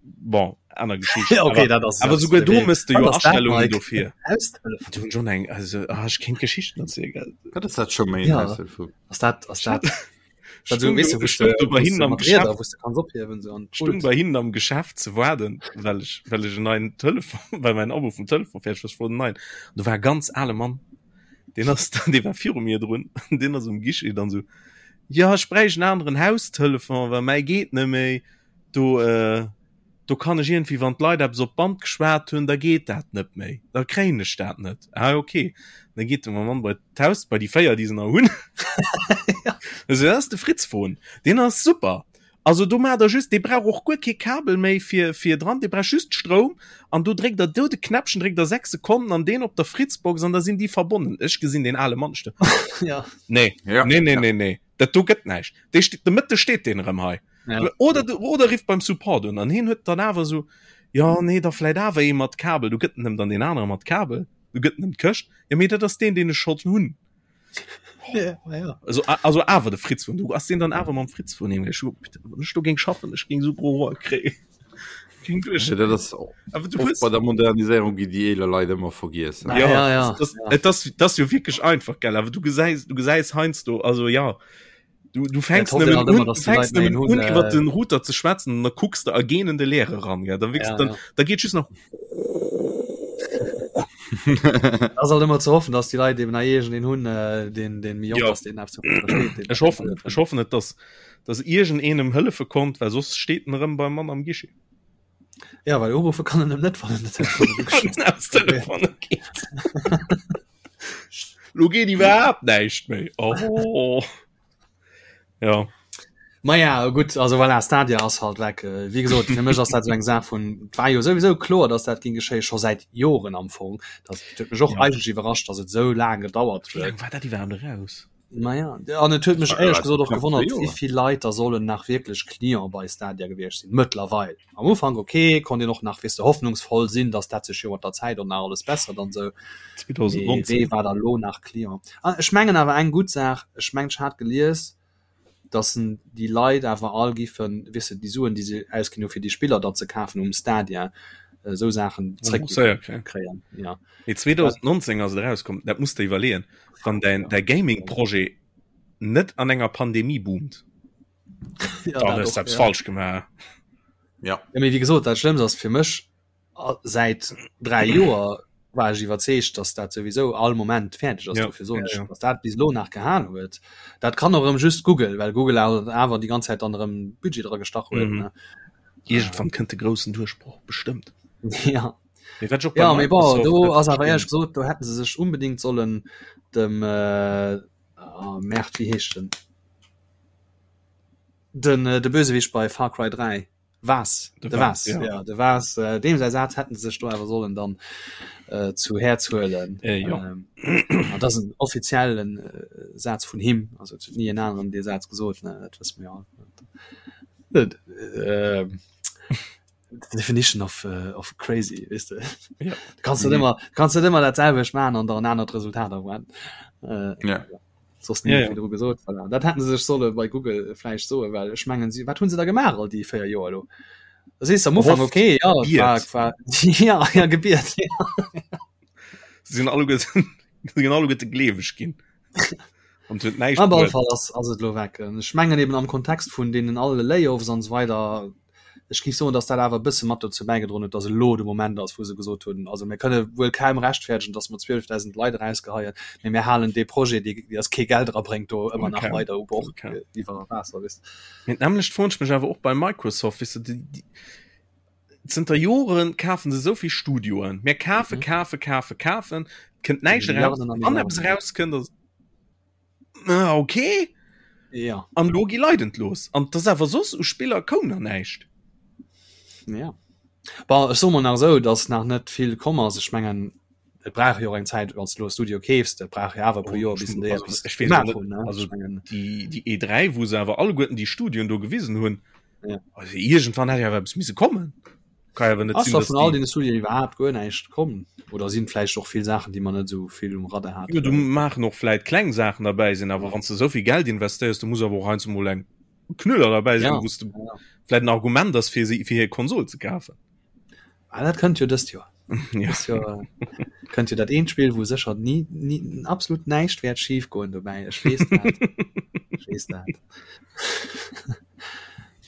Bon, aner Geschicht. Ja, okay, awer dat ass awer dat souguer do wéi mëss de wat jo ass dat, Astellungen Mike? dofir. Haustelefon? Du hunn schon eng also ah, ech kéint Geschichten erzielen, gell? Wat ass dat scho méi en Ja, Haustelefon? ass dat ass dat Ech dat so stung weess do du, wou ech s de stung do bei wou s hinnen de am mat Rieder Geschäft wou s de kanns ophiewen sou an stung d'Pult. bei hinnen am Geschäft ze waarden, well ech well ech en neien Telefon well mäin Abo vum Telefon fäerdeg war, ech wollt en neien. An do war e ganz ale Mann, deen ass dann dee war viru mir drun, deen ass um Guichet dann sou Jo ech bräicht en aneren Haustelefon, well mäi geet net méi. Do do kann ech iergendwéi wann d'Leit eppes op d'Band geschwat hunn, da geet dat net méi, da kréien ech dat net. Ah ok, da geet de Mann bei d'Haus bei déi 4 déi se nach hunn. Also dat ass de Fritzfon, deen ass super. Also do maacht der just, dee brauch och guer kee Kabel méi fir fir dran, dee brauch just Stroum an do dréckt der do de Knäppchen, dréckt der 6 Sekonnen an deen op der Fritzbox an da sinn déi verbonnen. Ech gesinn deen ale Mann sto. Ja. Nee, Ja. nee, nee, Ja. nee, nee, dat do gëtt näischt. Dee steet, de Mëtte steet deen erëm hei. Ja. Oder du, oder rifft beim Support un an hien huet dann awer sou, jo nee, da vläit awer ee mat Kabel, du gëtt en em dann deen anere mat Kabel, du gëtt en em d'Këscht, jo mee dat ass deen, deen ech schonn hunn. Ja, ja. Also, also awer de Fritz vun du ass den dann awer mam Fritz vun him ech du géing schaffen ech géing so pro kréien. Ja, dat ass Awer du oft hues bei der Moderniséierung gi déi eeler Leit ëmmer vergiess. Ja, ja, ja. Das, das, das, das jo wierklech einfach gell awer du gesäis du gesäis heiansdo also ja. Du, du fängst nëmmen un, du fängst nëmmen un iwwer den Router ze schwätzen an da kucks de a genen de Leere ran ja. Da, ja, dann, ja. da geet just nach ass halt ëmmer ze hoffen, dass die Leit eben nach den hunn äh, den den mi ja. den Ech hoffen net ech hoffen net, dass dass iergend eenem hëllefe konnt, well soss steet en erëm beim Mann am Guichet. Ja well urufe kann en net wann en Telefon geet. Lo geet iwwerhaapt näischt méi. Oh. Ja. Ma ja gutt also voilà, Stadia ass halt weg. Äh, wéi gesot fir mech ass dat sou eng Saach vun war jo souwisou kloer, datt dat ging geschéie scho säit Joren am Fong. Dat huet mech och ja. eigentlech iwwerrascht, datt et sou laang gedauert huet. Wéi laang war dat iwwerhaapt eraus? Naja, an et huet mech éierlech gesot och gewonnert, wéi vill Leit da sollen nach wierklech Client bei Stadia gewiescht sinn mëttlerweil. Am Ufank okay, konnt een och nach weess de hoffnungsvoll sinn, datt dat sech jo mat der Zäit och nach alles bessert an esou. Mee wee war da lo nach Client? An ech mengen awer eng gutt Saach, ech mengen ech hat gelies, datt en déi Leit awer all giffen, weess de, déi Suen déi se ausginn hu fir déi Spiller da ze kafen um Stadia, esou Saachen zréck kréien. Ja. Mee 2019 ass et erauskomm, dat muss de iwwerleeën. Wann däin däi Gaming-Projet net an enger Pandemie boomt, ja, dann hues du eppes falsch gemaach. Ja. Ja, mee wéi gesot, dat Schlëmmst ass fir mech, säit 3 Joer war ech iwwerzeegt, dass dat souwisou all Moment fäerdeg ass. Ja. Dofir soen ech, ja, ja. dass dat bis elo nach gehal huet. Dat kann och erëm just Google, well Google awer déi ganz Zäit dann erëm Budget dra gestach huet. Mhm. Iergendwann kënnt de groussen Duerchbroch bestëmmt. Ja. Mee wat ech och bei Ja, mee bon, do ass awer éierlech gesot, do hätten se sech unbedingt sollen dem, äh, oh Merde, wéi heescht en? Den, äh, de Bösewicht bei Far Cry 3. Vaas, de Vaas, ja. ja, de Vaas, äh, deem säi Saz hätten se sech do awer sollen dann äh, zu Häerz huelen. Äh, ja. Ähm, an dat ass en offiziellen äh, Saz vun him, also et huet ni en aneren dee Saz gesot, ne, dat wësse mir all. Äh, the definition of, uh, of crazy weißt du? Ja. Du kannst mhm. immer kannst du immer dat selwecht machen an der an anert Resultat erwarten. Äh, ja. Soss ja, ja. gesot voilà. Dat hätten se sech solle bei Google vläicht soe well ech mengen sie wat hunn se da gemaach all déi 4 Joer lo Das ist am Ufang okay ja, war, war, ja, ja gebiert ja. sinn alle sinn alle gleeweg ginn. An huet näischt Op alle Fall ass, ass et lo weg. Ech mengen eben am Kontext vun deenen alle Layoffs an esou weider, ech géif soen, datt dat awer e bësse mat dozou bäigedroen huet, datt elo de Moment ass, wou se gesot hunn, also mir kënne wuel kaum rechtfäerdegen, datt mer 12.000 Leit erausgeheien, mee mir halen dee Projet, dee dee eis kee Geld erabréngt, do ëmmer nach weider u Bord iwwer Waasser, weess de. Mee d'nämmlecht froen ech mech awer och bei Microsoft, weess de, déi, déi, zënter Joren kafen se esou vill Studioen. Mir kafen, kafen, kafen, kafen, kënnt näischt eraus. Wann eppes erauskënnt, ass Ah, okay. Ja. An lo gi Leit entlos. An das awer soss u Spiller koum nach näischt. Ja. Bon, ech soe mol nach esou, dass nach net vill komm ass. Ech mengen, et brauch jo och eng Zäit, wann s de elo e Studio keefs, dat brauch jo awer e puer Joer, bis en déi eppes gemaach hunn, ne? Also déi, déi E3, wou se awer alleguerten déi Studioen do gewisen hunn, Ja. also iergendwann hätt jo awer eppes misse kommen. Kann jo awer net Ass sinn, da dass vun all déi deene Studioen iwwerhaapt guer näischt komm? Oder sinn vläicht och vill Saachen, déi mer net esou vill um Radar haten? Jo, do maachen och vläit kleng Saachen derbäi sinn, awer wann s de esou vill Geld investéiers, do muss awer och heiansdo mol eng Knüller derbäi sinn, Ja, wou s de ja. vläit en Argument ass, fir si, fir hir Konsol ze kafen. Ah, dat kënnt jo dëst Joer. Ja. Dëst Joer kënnt jo dat eent Spill, wou sécher ni, ni, absolut näischt wäert schif goen dobäi. Ech weess dat. Ech weess dat.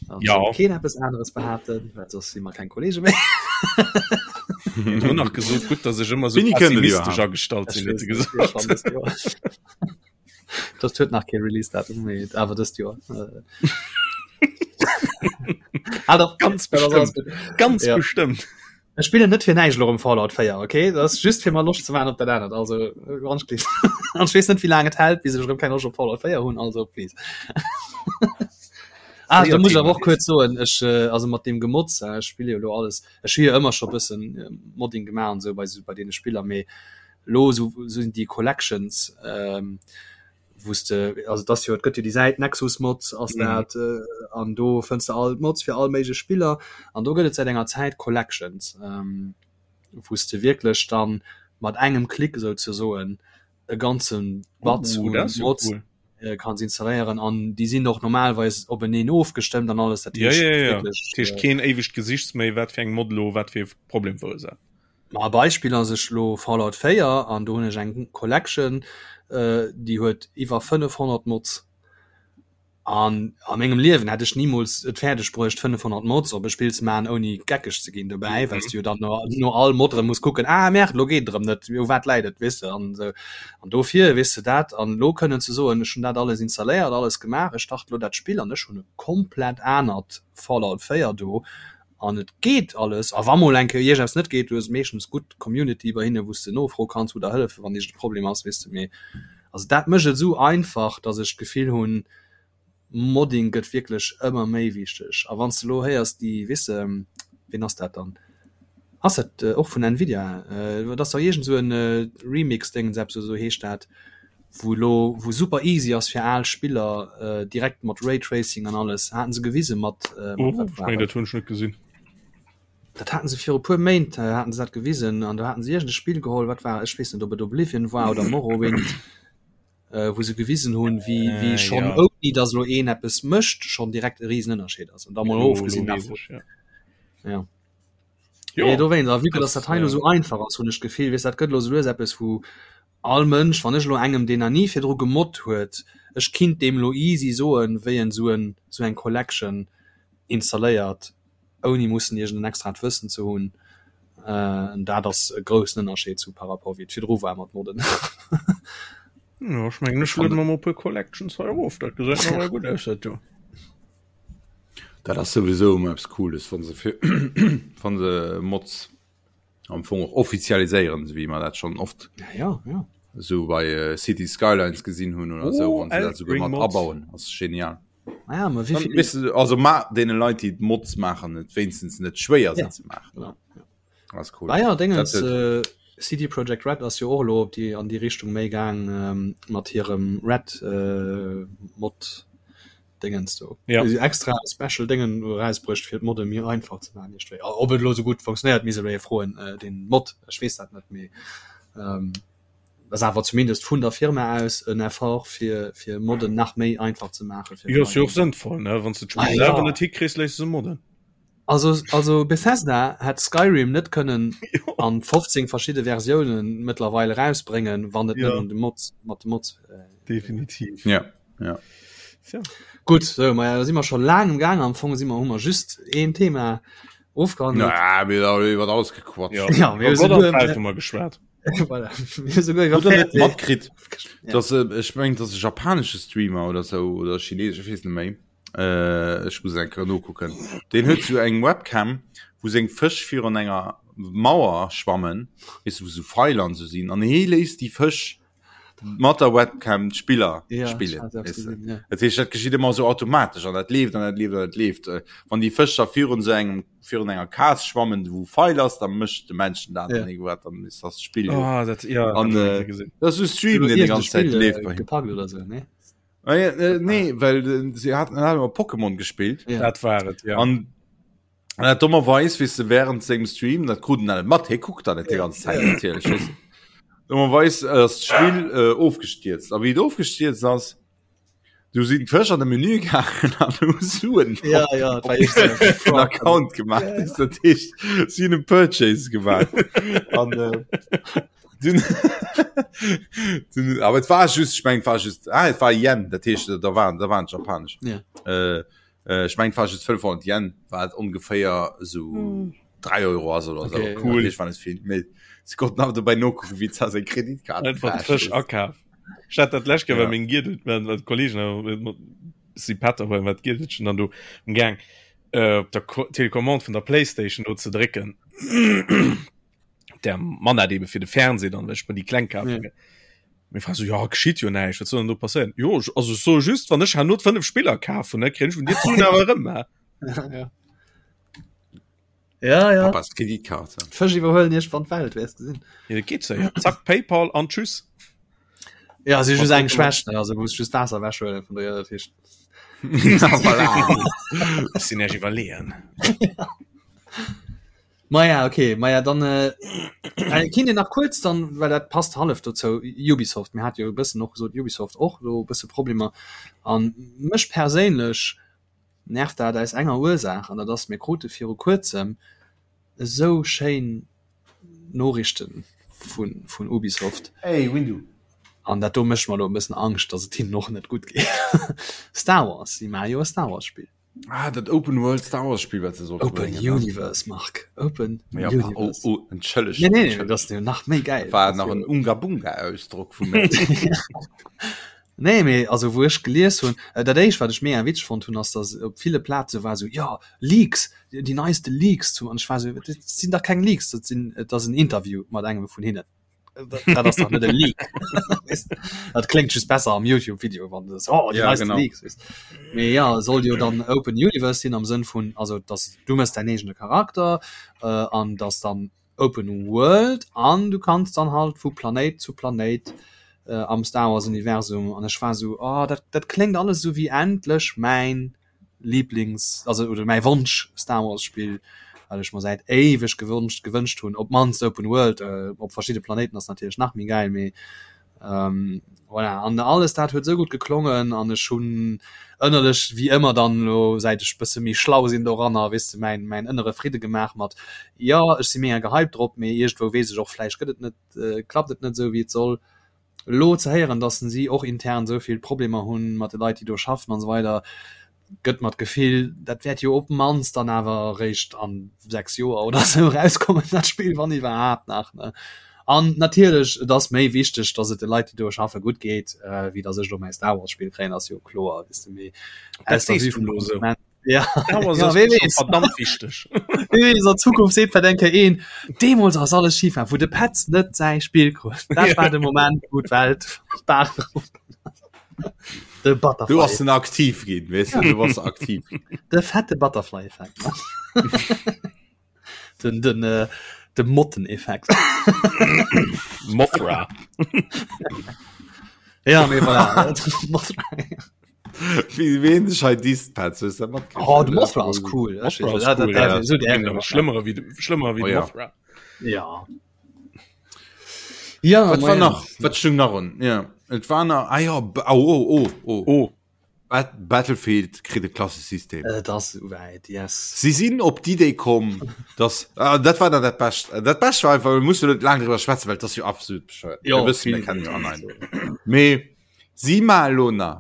An Ja. soll keen eppes aneres behaapten, well soss si mer keng Kollege méi. Huet elo nach gesot, gutt, dass ech ëmmer sou Wéini kënnt et pessimistesch iwwerhaapt? agestallt Ech sinn, huet weess se net, gesot. schonn dëst Joer. Dat huet nach kee Release-Datum, mee awer dëst Joer. Äh. Ah, doch, Ganz dat ass alles bestëmmt. gutt. Ganz Ja. bestëmmt. Ech spillen net fir näischt elo rëm Fallout 4, okay? Dat ass just fir mer Loscht ze maachen op dat anert. Also, ganz please. An ech weess net, wéi laang et hält, bis ech erëm keng Loscht op Fallout 4 hunn, also please. Ah, da muss ech awer och kuerz soen, ech, äh, also mat deem Gemotz, äh, ech spille jo elo alles, ech hu jo ëmmer scho bëssen äh, Modding gemaach an esou bei, bei deene Spiller, mee elo esou sinn déi Collections, ähm, wou s de, also et ass jo, et gëtt jo déi Säit Nexus Mods ass mhm. dat äh, an do fënns de all Mods fir all méiglech Spiller an do gëtt et säit enger Zäit Collections, ähm, wou s de wierklech dann mat engem Klick souzesoen e ganzen Batz oh, un Mods cool. äh, kanns installéieren an déi sinn och normalweis openeen ofgestëmmt an alles dat ja, ja, ja. Wirklich, dat heescht äh, keen éiwegt Gesichts méi wat fir eng Mod lo wat fir Problem verursaacht. Ma e Beispill ass ech lo Fallout 4 an do hunn ech eng Collection, déi huet iwwer 500 Mods. An a mengem Liewen hätt ech nimools et fäerdeg bruecht 500 Mods op e Spill ze maachen ouni geckeg ze ginn dobäi, well s du jo dann no, no all Mod erëm muss kucken, ah merde, lo geet et erëm net, u wat läit et, weess de, an esou. An dofir, weess de, dat an elo kënnen ze soen, ech hunn dat alles installéiert, alles gemaach, ech starte lo dat Spill an ech hunn e komplett anert Fallout 4 do an et geet alles. A wa mol eng Kéier iergendeppes net geet, du hues meeschtens gutt Community bei hinne wou s de nofroe kanns, wou der hëllefen, wann iergend e Problem ass, weess de, mee Also dat mécht et esou einfach, datt ech d'Gefill hunn, Modding gëtt wierklech ëmmer méi wichteg. A wann s de elo héiers, déi, weess de, ween ass dat dann? Ass dat och vun Nvidia? Et ass dach iergend esou e Remix-Déngens, eppes esou heescht dat, wou elo, wou super easy ass fir al Spiller direkt mat Raytracing an alles, haten se gewise mat, mat wat war dat? Dat hunn ech net gesinn. Dat haten se viru puer Méint haten se dat gewisen an do haten se iergend e Spill geholl, wat war, ech weess net ob et Oblivion war oder Morrowind, äh, wou se gewisen hunn, wéi, wéi äh, schonn ja. ouni datt elo een eppes mécht, schonn direkt e Risenënnerscheed ass. An da mol ofgesinn davon. Ja. Ja. Jo, nee, dowéinst, a vue que dass dat hei elo sou einfach ass, hunn ech d'Gefill, weess, dat gëtt elo sou lues eppes, wou all Mënsch, wann ech elo engem, deen nach ni virdru gemoddt huet, ech kinnt deem elo easy soen, wéi en sou en, sou eng Collection installéiert, ouni mussen iergend en extraat Wëssen ze hunn, en dat ass e groussen Ënnerscheed zu par rapport wéi et virdru war mat Modden. Jo, ech mengen ech lueden mer mol e puer Collections hei erof, dat gesäit nawell gutt aus dat do. Dat ass souwisou ëmmer eppes Cooles, wann se fir wann se Mods am Fong och offizialiséieren, esou wéi mer dat schonn oft Ja, ja, ja. esou bei Cities Skylines gesinn hunn oder esou, Oh, wann se dat souguer Elden Ring mat Mods. abauen, ass genial. Ah ja, ma wéi Weißt du, also ma deene Leit déi Mods maachen et wéinstens net schwéier se ja, ze maachen. Genau, ja. Das cool. Ah ja, Dingens, äh, CD Projekt Red ass jo och elo op déi an déi Richtung méi gaang ähm, mat hirem Red äh, Mod Dingens do. Ja. Si extra Special Dingen erausbruecht fir d'Modde méi einfach ze maachen. Ob et elo sou gutt funktionéiert, misst ee froen äh, den Mod, ech weess dat net méi. Ähm, ass awer zumindest vun der Firma aus en Effort fir fir Modden nach méi einfach ze maachen. Jo ass jo och sënnvoll ne wann s de d'Spill selwer net hikriss, léiss de se modden. Also also Bethesda hätt Skyrim net kënnen an 15 verschidde Versiounen mëttlerweil erausbréngen, wann et net un de Mods mat de Mods. Definitiv. Ja ja. Tja. Gutt, sou maja da si mer scho laang um Gaang. Am Fong si mer hu mer just een Thema ofgehandelt. Na, mir hu iwwer alles gequatscht. Ja, Ja, mir hu Gott souguer an d'Welt hu mer geschwat. Voilà. Mir hu souguer iwwer Hutt der net Fernseh- matkritt, Ja. dass äh, ech meng, dass e japanesche Streamer oder sou oder chinesesch, ech weess net méi. Äh, ech muss eng Kéier nokucken. Deen huet sou eng Webcam, wou seng Fësch virun enger Mauer schwammen, weess du, wou sou Feiler an sou sinn, an hee léisst déi Fësch mat der Webcam d'Spiller Ja, spillen. ich hat Weißt du? gesehen, ja. Dat heescht, dat geschitt ëmmer sou automatesch an dat leeft an dat leeft an dat leeft. Äh, Wann déi Fësch da virun sou engem virun enger Kas schwammen, wou Feil ass, dann mécht de Männchen dat Ja. an irgendwas, dann ist das Spill. jo. Ah, dat ja, An, hab ich äh, gesehen. Das ist e Stream, den die ganze Zeit Spiel, leeft äh, bei him. gepackt oder so, ne? Ah, ja, äh, nee, well äh, sie hatten hat immer Pokémon gespielt. Ja. Dat war et, ja. An an dat dummerweis, weess de, während sengem Stream, dat krut en dat net mat, hie kuckt dat net déi ganz Zäit natierlech, weess de. Dummerweis ass d'Spill äh, ofgestierzt. A wéi et ofgestierzt ass, du sinn d'Fësch an de Menü gaangen an hu Suen Ja, ja, dat war echt so. en Account gemaach. Ja. Ja. Dat heescht, si hunn e Purchase gemaach. An äh, dun, dun, awer et war just, ech meng, et war just, ah, et war Yen, dat heescht, da waren, da waren japanisch. Ja. Äh, Ech meng war just 500 Yen, wat ongeféier esou 3 Euro ass oder sou. Okay, cool. Ech war net vill méi. Si konnten awer dobäi nokucken, wéi za seng Kreditkaart Einfach gecrashed frësch ass. akaf. Ech hat dat lescht Kéier Ja. bei mengem Giedel, mä mat Kollegen, äh, mat si Pätter huelen, wat Giedelchen dann do um Gaang äh, op der Ko Telecommande vun der Playstation do ze drécken. Der Mann hat eben fir de Fernseh dann, well ech mer déi kleng kaf. Ja. Mir fra so ja geschitt jo näischt, wat soll denn do passéieren? Jo ech, also ech soe just, wann ech herno 5 Spiller kafen, ne kréien ech vun dir d'Suen awer erëm, hä? Ja, ja. Ja, ja. Papas Kreditkarte. D'Fësch iwwerhuelen iergendwann d'Welt, wäers gesinn. Ja, dat geet séier. Zack, PayPal an tschüss. Ja, si just eng Schwächt, ne? Also muss just Waasser ewechhuelen vun der, dat heescht. Na voilà. Ech sinn näischt iwwerleeën. Maja okay, maja dann äh, äh, kinnt Dir nach kuerz dann, well dat passt hallef dozou, Ubisoft, mir hat jo e bëssen och gesot, Ubisoft och elo e bësse Problemer an mech perséinlech nervt dat aus enger Ursaach an dat ass, mir krute viru kuerzem esou schéin Noriichten vun vun Ubisoft Hey Windu. An dat do mécht mer elo e bëssen Angscht, dass et hinnen och net gutt geet. Star Wars, si maache jo e Star Wars Spill. Ah, dat Open World Star Wars Spill, wat se sollten Open bréngen, ne? Universe, Marc. Open Ja, pa, oh, Universe. oh, entschëlleg. Nee, nee, nee, dat ass jo nach méi gäil. War nach en Unga-Bunga-Ausdrock vu mir. Nee, mee also wou ech gelies hunn, äh, dat éischt wat ech mega witzeg fonnt hunn, ass dass op ville Plaze war sou, jo, Leaks, déi neiste Leaks zum, an ech war sou, dat sinn dach keng Leaks, dat sinn, et ass en Interview mat engem vun hinnen. Dat ass dach net e Leak. Dat kléngt just besser am YouTube-Video, wann du oh, déi Ja, neiste genau. Leaks. Weess. Mee ja, soll jo dann Open Universe sinn am Sënn vun, also dass du mëss däin eegene Charakter äh, an dass dann Open World an du kanns dann halt vu Planéit zu Planéit äh, am Star Wars Universum an ech war sou oh, dat, dat kléngt alles sou wéi endlech mäin Lieblings also oder mäi Wonsch Star Wars Spill wat ech mer säit éiweg gewonscht gewënscht hunn op mannst Open World äh, op verschidde Planéiten ass natierlech nach méi gäil mee Ähm, voilà. An alles dat huet sou gutt geklongen an ech hunn ënnerlech wéi ëmmer dann lo säit ech bësse méi schlau sinn doranner weess de mäin mäin ënnere Fridde gemaach mat jo ech si mega gehypt drop mee iergendwou weess ech och vläicht gëtt et net äh, klappt et net sou wéi et soll. Elo ze héieren dass si och intern sou vill Problemer hunn mat de Leit déi do schaffen an esou weider gëtt mer d'Gefill, dat wäert jo op d'mannst dann awer eréischt an 6 Joer oder sou erauskommen, dat Spill, wann iwwerhaapt nach, ne? An natierlech, et ass méi wichteg, dass et de Leit, déi do schaffe, gutt geet, wéi dass ech elo mäi Star Wars Spill kréien, ass jo kloer, weess de, mee Dat aus der sees Vue du vum elo esou. Konsument, ja, Star Wars ja, ass wee mir scho weess, verdammt wichteg. wee weess, an Zukunft seet vläicht eng Kéier een, deemools ass alles schif gaang, wou de Petz net säi Spill krut, dat war de Moment, wou d'Welt d'Baach erof gaang ass. De Butterfly. Du hast den aktiv ginn weißt du, du warst aktiv. De fette Butterfly-Effekt. den den, äh, de Motteneffekt. Mothra. ja, mee voilà. Mothra. Wie wen sech hei disst, Petz, hues du dat matkritt? Oh, de Mothra ass cool. Mothra ass cool, ja. So, der, Schlëmmerer wéi schlëmmer wéi Oh, ja. Mothra. Ja. Ja, Wat war nach? Wat stung nach un? Ja. Et war nach ah ja, oh, oh, oh, oh. Oh. Bat Battlefield kritt e Klassesystem. Et ass souwäit, yes. Si sinn op d'Idee komm, dass ah, dat war dann dat Bescht. Dat Bescht war einfach, wir mussen net laang driwwer schwätzen, well dat ass jo absolut bescheuert. Jo, Wir wëssen, mir kennen jo an ein. Mee si ma elo nach.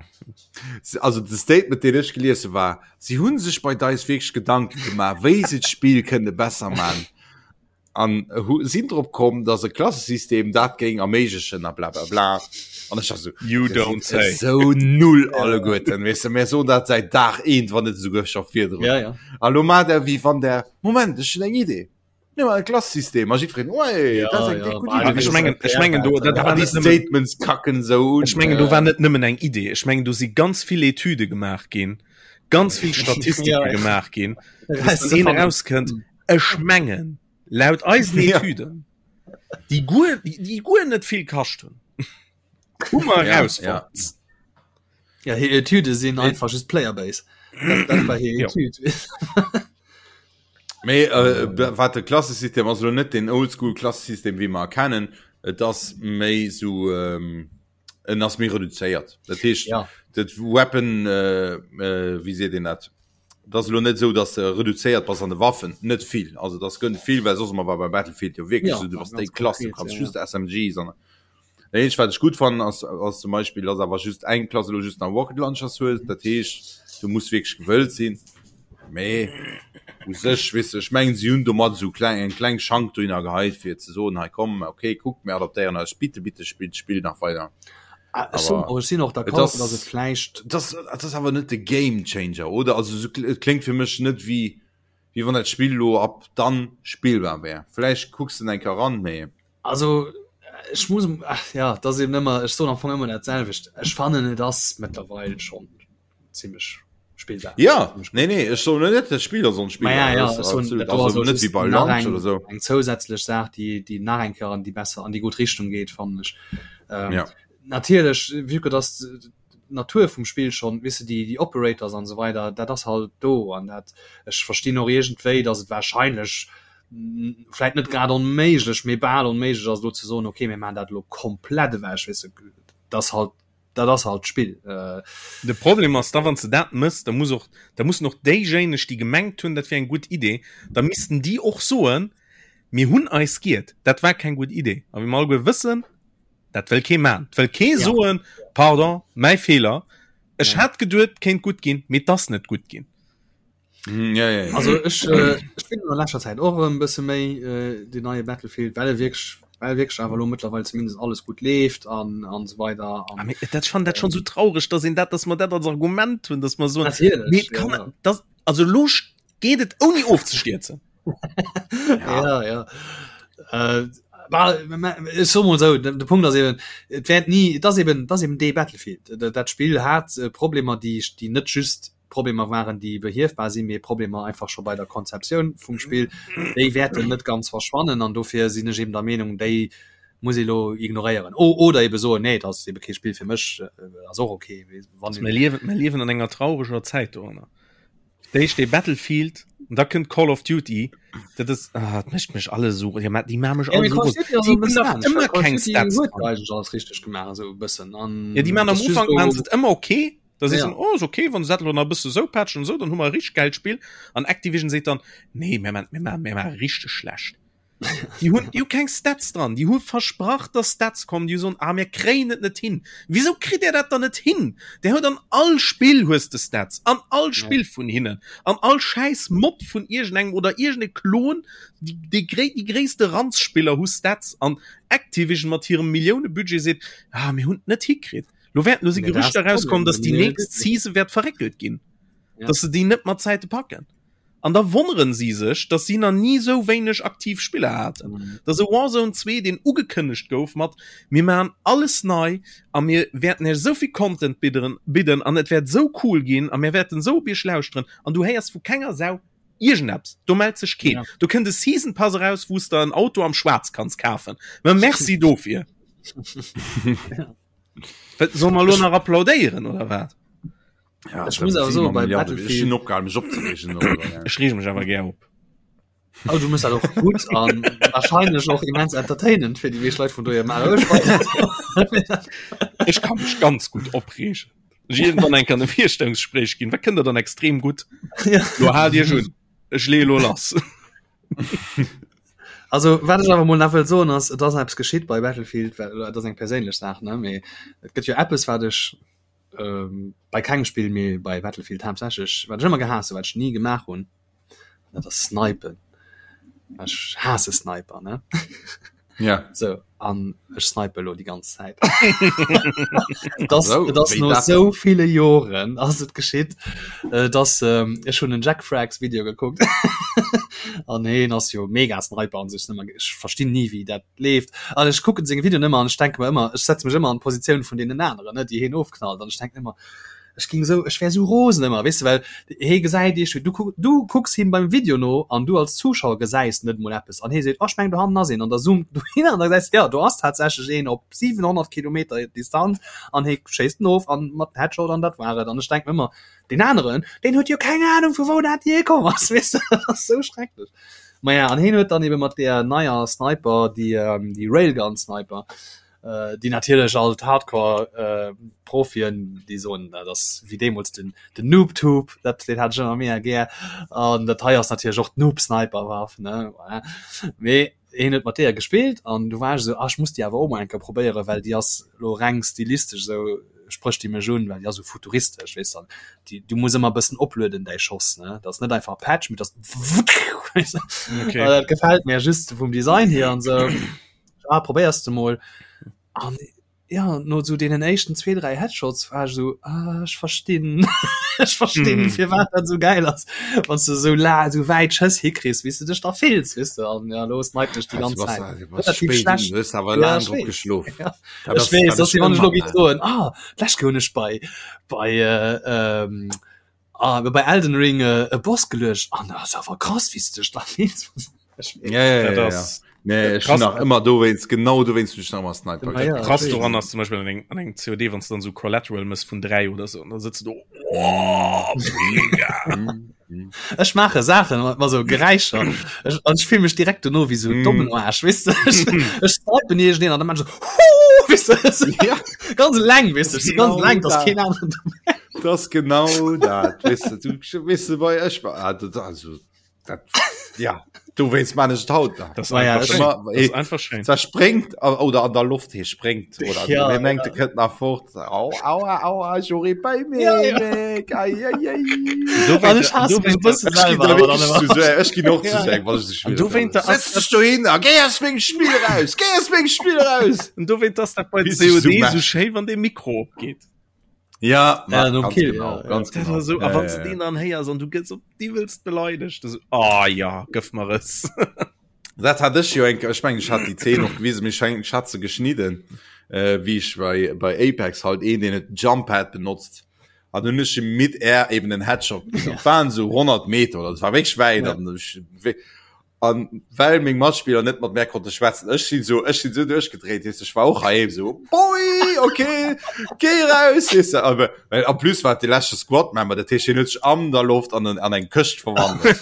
Also de Statement, deen ech gelies hu war, si hunn sech bei DICE wierklech Gedanke gemaach, wéi se d'Spill kënne besser man. An hu sinn drop komm, dass e Klassesystem dat géing erméiglechen a bla bla bla. An ech war sou, You Dir don't sidd say. esou null alleguerten, weess de, mir soen dat säit Dag eent, wann net esouguer scho virdrun. Ja, ja. A lo maacht der wéi wann der, Moment, ech hunn eng Idee, mir maachen e Klassesystem a jiddwereen, Oei, Ja, dat ass eng ja, déck gutt bah, Idee. Ech mengen, ech mengen do, dat Ja, war déi net nëmmen, Statements kacken esou un. ech mengen do war net nëmmen eng Idee. Ech mengen do si ganz vill Etüde gemaach ginn, ganz vill Statistike Ja, ja. gemaach ginn, bis dann een erauskënnt, Ech mengen, laut eisen Etüden, déi guer, déi guer net vill kascht hunn, hu mer erausfonnt. Ja, hir Etüde sinn einfach just Playerbase. Dat, dat war hir Etüd. Mee äh, wat de Klassesystem ass elo net den Oldschool Klassesystem wéi mer kennen, et ass méi sou ähm, en ass méi reduzéiert. Dat heescht ja. dat Weapon äh, äh, wéi seet een dat? Dat ass elo net esou, datt de reduzéiert bass an de Waffen, net vill. Also dat gënnt vill, well soss ëmmer war bei Battlefield jo wierklech Ja, esou, du bass ganz déi Klass, du konkret, kanns ja, just SMGs an Dat eenzegt wat ech gutt fannen ass, ass zum Beispill, datt awer just eng Klass elo just nach Rocket Launchers hues. Dat heescht, du muss wierklech gewëllt sinn. Mee u sech, weess de, ech mengen si hunn domat esou kleng, eng kleng Schank dohinner geheit fir ze soen, hei komm, okay, kuckt, mir adaptéieren eis, bitte, bitte spillt d'Spill nach weider. Ah, ech soen Aber och, ech sinn och et d'accord, ass, datt et vläicht et ass, et ass awer net de Game Changer, oder? Also esou, et kléngt fir mech net wéi, wéi wann dat Spill elo ab dann spillbar wär. Vläicht kucks de eng Kéier eran, mee. Also ech muss, ach ja, et ass eben ëmmer, ech soen am Fong ëmmer dat selwecht, ech fannen et ass mëttlerweil schonn zimmlech spillbar. Ja, nee, nee, ech soen net, dat Spill ass onspillbar. Ma ja, ja, Das ech soen, absolut, dat do ass also och net wéi just bei nach Launch eng, oder sou. eng zousätzlech Saach, déi, déi nach eng Kéier an déi besser, an déi gutt Richtung geet, fannen ech. Ähm, Ja. Natierlech, vue que dass d'Natur vum Spill schonn, weess de, déi, déi Operators an esou weider, dat ass halt do an dat, ech verstinn och iergendwéi, dass et wahrscheinlech vläit net grad onméiglech, mee bal onméiglech ass, elo ze soen, okay, mir maachen dat elo komplett ewech, weess de, dass halt dat ass halt d'Spill. De Problem ass da, wann s de dat mëss, da muss och, da mussen och déijéineg, déi gemengt hunn, dat wier eng gutt Idee, da missten déi och soen, mir hunn eis giert, dat war keng gutt Idee. A wéi mer alleguer wëssen. Dat wëll kee man. Wëll kee ja. soen, pardon, mäi Feeler. Ech ja. hat geduet, kéint gutt ginn, mee 't ass net gutt ginn. Mm, ja, ja, ja. Also ech, äh, ech spillen an leschter Zäit och e bësse méi äh, den neie Battlefield, well e wierklech well wierklech awer lo mëttlerweil zumindest alles gutt leeft an an esou weider an, ah, mee, dat ech fannen dat schon so traurig, dass een dat, dass mer dat als Argument hunn, dass mer soen, Natierlech, nee, kann, ja. das, also lo geet et ouni ofzestierzen. ja, ja. Äh, ech soe mol esou, de Punkt ass eben, et wäert ni, et ass eben, et ass eben dee Battlefield. Dat Spill hat äh, Problemer, déi, déi net just Problemer waren, déi behiefbar sinn, mee Problemer einfach scho bei der Konzeptioun vum Spill. Déi wäerten net ganz verschwannen an dofir sinn ech eben der Meenung, déi muss ee lo ignoréieren. O, oder ebe soen, nee, dat ass ebe kee Spill fir mech, äh, ass och okay. Wann Mir liewen, mir liewen an enger traureger Zäit doranner. D'éischt dee Battlefield an da kënnt Call of Duty. Dat ass ah, dat mécht mech alles esou ja, déi maache mech Ja, all mee esou Call of rose. Duty ass Déi e hunn bëssen nach anescht, well ëmmer Call of keng Duty Stats huet dran. eigentlech alles richteg gemaach esou e bëssen an Ja, déi maachen et am ass just Ufank lo maachen se et ëmmer okay. Da sees Ja. du, oh, ist okay, wann se dat elo nach e bësse sou patchen an esou, dann hu mer e richteg gäilt Spill. An Activision seet dann, nee, mir maachen, mir maachen, mir maache richteg schlecht. Déi hunn, déi hu keng Stats dran. Déi hu versprach, dass Stats kommen. Déi hu soen, ah, mir kréien et net hin. Wisou kritt Dir dat dann net hin? Der huet an all Spill hues de Stats, an all Spill vun hinnen, an all schäiss Mod vun iergendengem oder iergende Klon, déi, déi, gréi, déi gréisste Ranzspiller hu Stats an Activision mat hirem Milliounebudget seet, ah, mir hunn et net hikritt. Lo wäerten, lo si Nee, dat ass Gerüchter de Problem, rauskomm, dass de déi nächst Milliounebudget. Season wäert verréckelt ginn, Ja. dass se déi net mat Zäite packen. An da wonneren si sech, dass si nach ni sou wéineg aktiv Spiller haten. Mhm. Dass e Warzone 2, deen ugekënnegt gouf mat mir maachen alles nei a mir wäerten iech esou vill Content bidderen, bidden an et wäert esou cool ginn a mir wäerten esou op iech lauschteren an du héiers vu kenger Sau iergendeppes. Do mellt sech keen. Ja. Do kënnt e Season Pass eraus, wou s der en Auto am Schwaarz kanns kafen. Ma merci dofir. Wat, solle mer elo nach applaudéieren oder wat? Ja, Ech muss awer soen, bei Battlefield- opgehalen mech opzeregen darüber, ja. Ech reege mech awer gär op. Oh, du muss dat och gutt an wahrscheinlech och immens entertainend fir déi meescht Leit vun dohier maachen. Ech weiß net. Ech kann mech ganz gutt opreegen. Ech irgendwann eng kann e Virstellungsgespräch ginn. Wat kënnt der dann extrem gutt? Ja. Lo haalt Iech un. Ech leeë lo lass. Also wat ech awer mol nach wëll soen ass, et ass eppes geschitt bei Battlefield, well et ass eng perséinlech Saach, ne, mee et gëtt jo eppes wat ech ähm, bei kengem Spill mee bei Battlefield haaptsächlech, wat ech ëmmer gehaasst hunn, wat ech ni gemaach hunn, dat ass snipen. Ech haasse Sniper, ne? Ja. So, an ech snipe elo déi ganz Zäit. Das, So, das wéi no dat sou ville Joren ass et geschitt, äh, dass ähm, ech hunn en Jack Frags Video gekuckt an heen ass jo mega Sniper an sech ëmmer ech verstinn ni wéi dat leeft an ech kucken seng Videoen ëmmer an ech denke mer ëmmer ech setze mech ëmmer an d'Positioun vun deenen aneren ne déi heen ofknallt an ech denken ëmmer ech ging sou ech wär sou rosen ëmmer weess de well hee gesäit iech du kuck du kucks him beim Video no an du als Zuschauer gesäis net mol eppes an hee seet oh ech mengen do hannen ass een an da zoomt du hin an da gesäis de jo do ass tatsächlech een op 700 Kilometer Distanz an hee schéisst en of an mat Headshot an dat war et an ech denken ëmmer deen aneren deen huet jo keng Ahnung vu wou dat jee komm ass weess de dat ass sou schrecklech. Maja an heen huet dann ebe mat deer neier Sniper déi ähm, déi Railgun Sniper äh, déi natierlech all d'Hardcore äh, Profien déi soen dat ass wéi deemools den den Noobtube dat deen hat ech ëmmer mega gär an dat hei ass natierlech och d'Noob Sniper Waff ne voilà. Mee heen huet mat deeër gespillt an du war ech esou, ah ech muss déi awer och mol eng Kéier probéieren, well déi ass elo reng stilistesch esou sprécht déi mech un, well déi ass esou futuristesch, weess de, an déi du muss ëmmer e bëssen oplueden däi Schoss ne, dat ass net einfach Patch, mee dat ass Okay. dat gefält mir just vum Design hier an esou, ah probéiers de mol an ja no sou deenen éischten zwee dräi Headshots war ech sou ah, ech verstinn ech verstinn mm. firwat dat sou geil ass wann du sou la sou wäit Schëss hikriss wéi s du dech da fills weess du an ja los snipen ech déi ganz Zäit Relativ schlecht. Du hues awer Ja, laang ech drop weess. geschlof. Ja. Dat Ech ass- weess, dat dass ass si wann ech lo ëmmer géif soen ah d'lescht Kéier hunn ech bei bei äh, ähm, ah, bei Elden Ring äh, e Boss geluecht an das ass awer krass wéi s du dech da fills Ech weess. Ja, ja, Dat ja, ja. ass Nee, ech Krass. hun nach ëmmer dowéinst, genau dowéinst hun ech nach ëmmer Sniper Ja, ja. gespillt. krass doran ass zum Beispiel an engem, an engem COD, wann du dann so Collateral mëss vun 3 oder so, und dann sitzt du do, oh, mega. Mm, mm. Ech maache Saachen mat mat sou Geräischer. Ech, an ech fill mech direkt dono wéi sou Mm. dommen Aarsch, weess de? Ech, ech snipen iergendeen an dann maan ech sou, Huuh, weess de? Ja, Ganz eleng, weess de? Ech si ganz Genau eleng, dass dat. keen aneren dobäi. das genau dat. Weess de, du, weess de, bei ech war, ah, dat, also. Dat, ja, du wéinst man ech haut nach. Das war ja, das immer, das einfach schön. Da springt oder an der Luft hier springt oder ja, ja. mengt, ja. nach fort. Au, aua, aua, Jury bei mir. Ja, ja. Ei, ei, ei. Ech ginn och zu seng, wann ech Du wéint der Setz dech do hin a géi aus mengem Spill raus! Géi aus mengem Spill raus! Und du wéint ass dat bei COD so schéi, wann de Mikro opgeet. Ja, ja, ganz Kill, genau, ja, ganz ja. genau. So, ja, a wann ja, du den dann héiers an du gëss op d'iwwelst beleidegt, du so, ah oh, ja, gëff mer es. Dat hat ech jo eng, ech mengen, ech hat déi Zeen och gewisen, mee ech mengen, ech hat se geschnidden, äh, wéi ech bei, bei Apex halt een, deen huet Jump-Pad benotzt. An hunn ech him mid-air eben en Headshot geginn. Dat waren esou 100 Meter oder, dat war wierklech wäit. Ja. An ech, An well meng Matspiller net mat mär konnte schwätzen, ech sinn sou, ech sinn sou duerchgedréit, weess de, ech war och heiheem sou, Boy, okay, géi raus, weess de, awer well en plus war et de leschte Squad-Member, dat heescht, hien huet sech an der Loft an en, an eng Këscht verwandelt.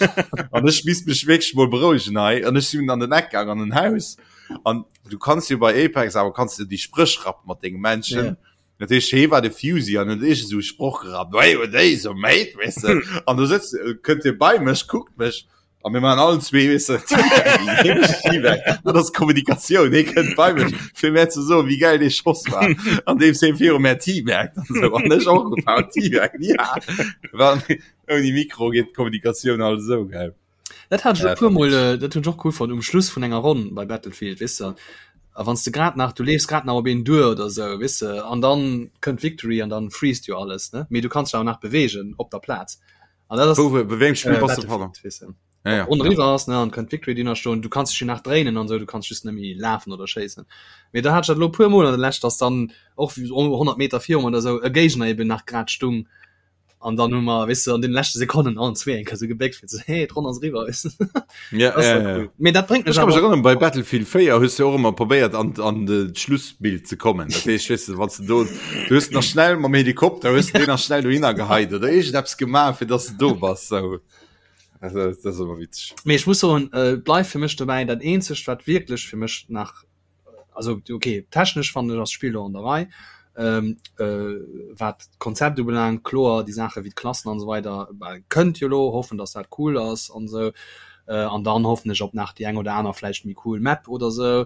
An ech misst mech wierklech mol berouegen hei. An ech sinn an den Eck gaang, an en Haus. An du kanns jo bei Apex awer kanns du déi Spréch rappe mat denge Menschen. Ja. Dat heescht, hie war de Fusey an huet iergend esou e Sproch gerappt, Hey, what day, so mate, weess de. An do sëtzt, kënnt hie bei mech, kuckt mech A mir machen allen zwee weißt du, Teabag. Dat ass Kommunikatioun. Hie kënnt bei mech fir mär ze soen, wéi geil dee Schoss war. An deem hie viru mär teabagt an sou. An ech och gepaut teabag. Ja. Wann ouni Mikro geet d'Kommunikatioun halt esou, gell. Dat hat ech Ja, e puer Mol, dat äh, dat hunn ech och cool fonnt um Schluss vun enger Ronn bei Battlefield, weess de. A wann s de grad nach, du leefs grad nach op een duer oder sou, weess de, an dann kënnt d'Victory an dann freest jo alles, ne? Mee du kanns dech awer nach beweegen op der Plaz. An dat ass Wou, bei wéi engem Spill äh, bass du, pardon? Battlefield, weess de. Ja, ja. Ronn eriwwer ass, ne, an kënnt d'Victory déi nach stoen, du kanns dech jo nach dréinen an sou, du kanns just net méi lafen oder schéissen. Mee da hat ech dat elo e puer Mol an der Lescht, dass dann och 100 Meter virum oder sou e Géigner eben nach grad stung an dann hu mer, weess de, an den leschte Sekonnen allen zwee eng Kéier sou gebéckt fir ze hey, d'Ronn ass eriwwer, weess de. Ja, Das ja, war ja. cool. Mee dat bréngt mech Ech ka mech awer erënneren, bei Battlefield 4 hues du och ëmmer probéiert an, an de d'Schlussbild ze kommen. Dat heescht, weess de, wann du do, du hues nach schnell mam Helikopter, hues du deen nach schnell dohinner geheit oder iergendeppes gemaach, fir dass du do bass. So. Also, dat ass ëmmer witzeg. Mee ech muss soen, äh, bleift fir mech dobäi, dat eenzegt wat wierklech fir mech nach also okay, technesch fannen ech ass d'Spill lo an der Rei, ähm, äh, wat d'Konzept ubelaangt, kloer déi Saache wéi d'Klassen an esou weider bah, kënnt jo lo, hoffen dass dat cool ass an esou, äh, an dann hoffen ech op nach déi eng oder aner vläicht méi cool Map oder esou.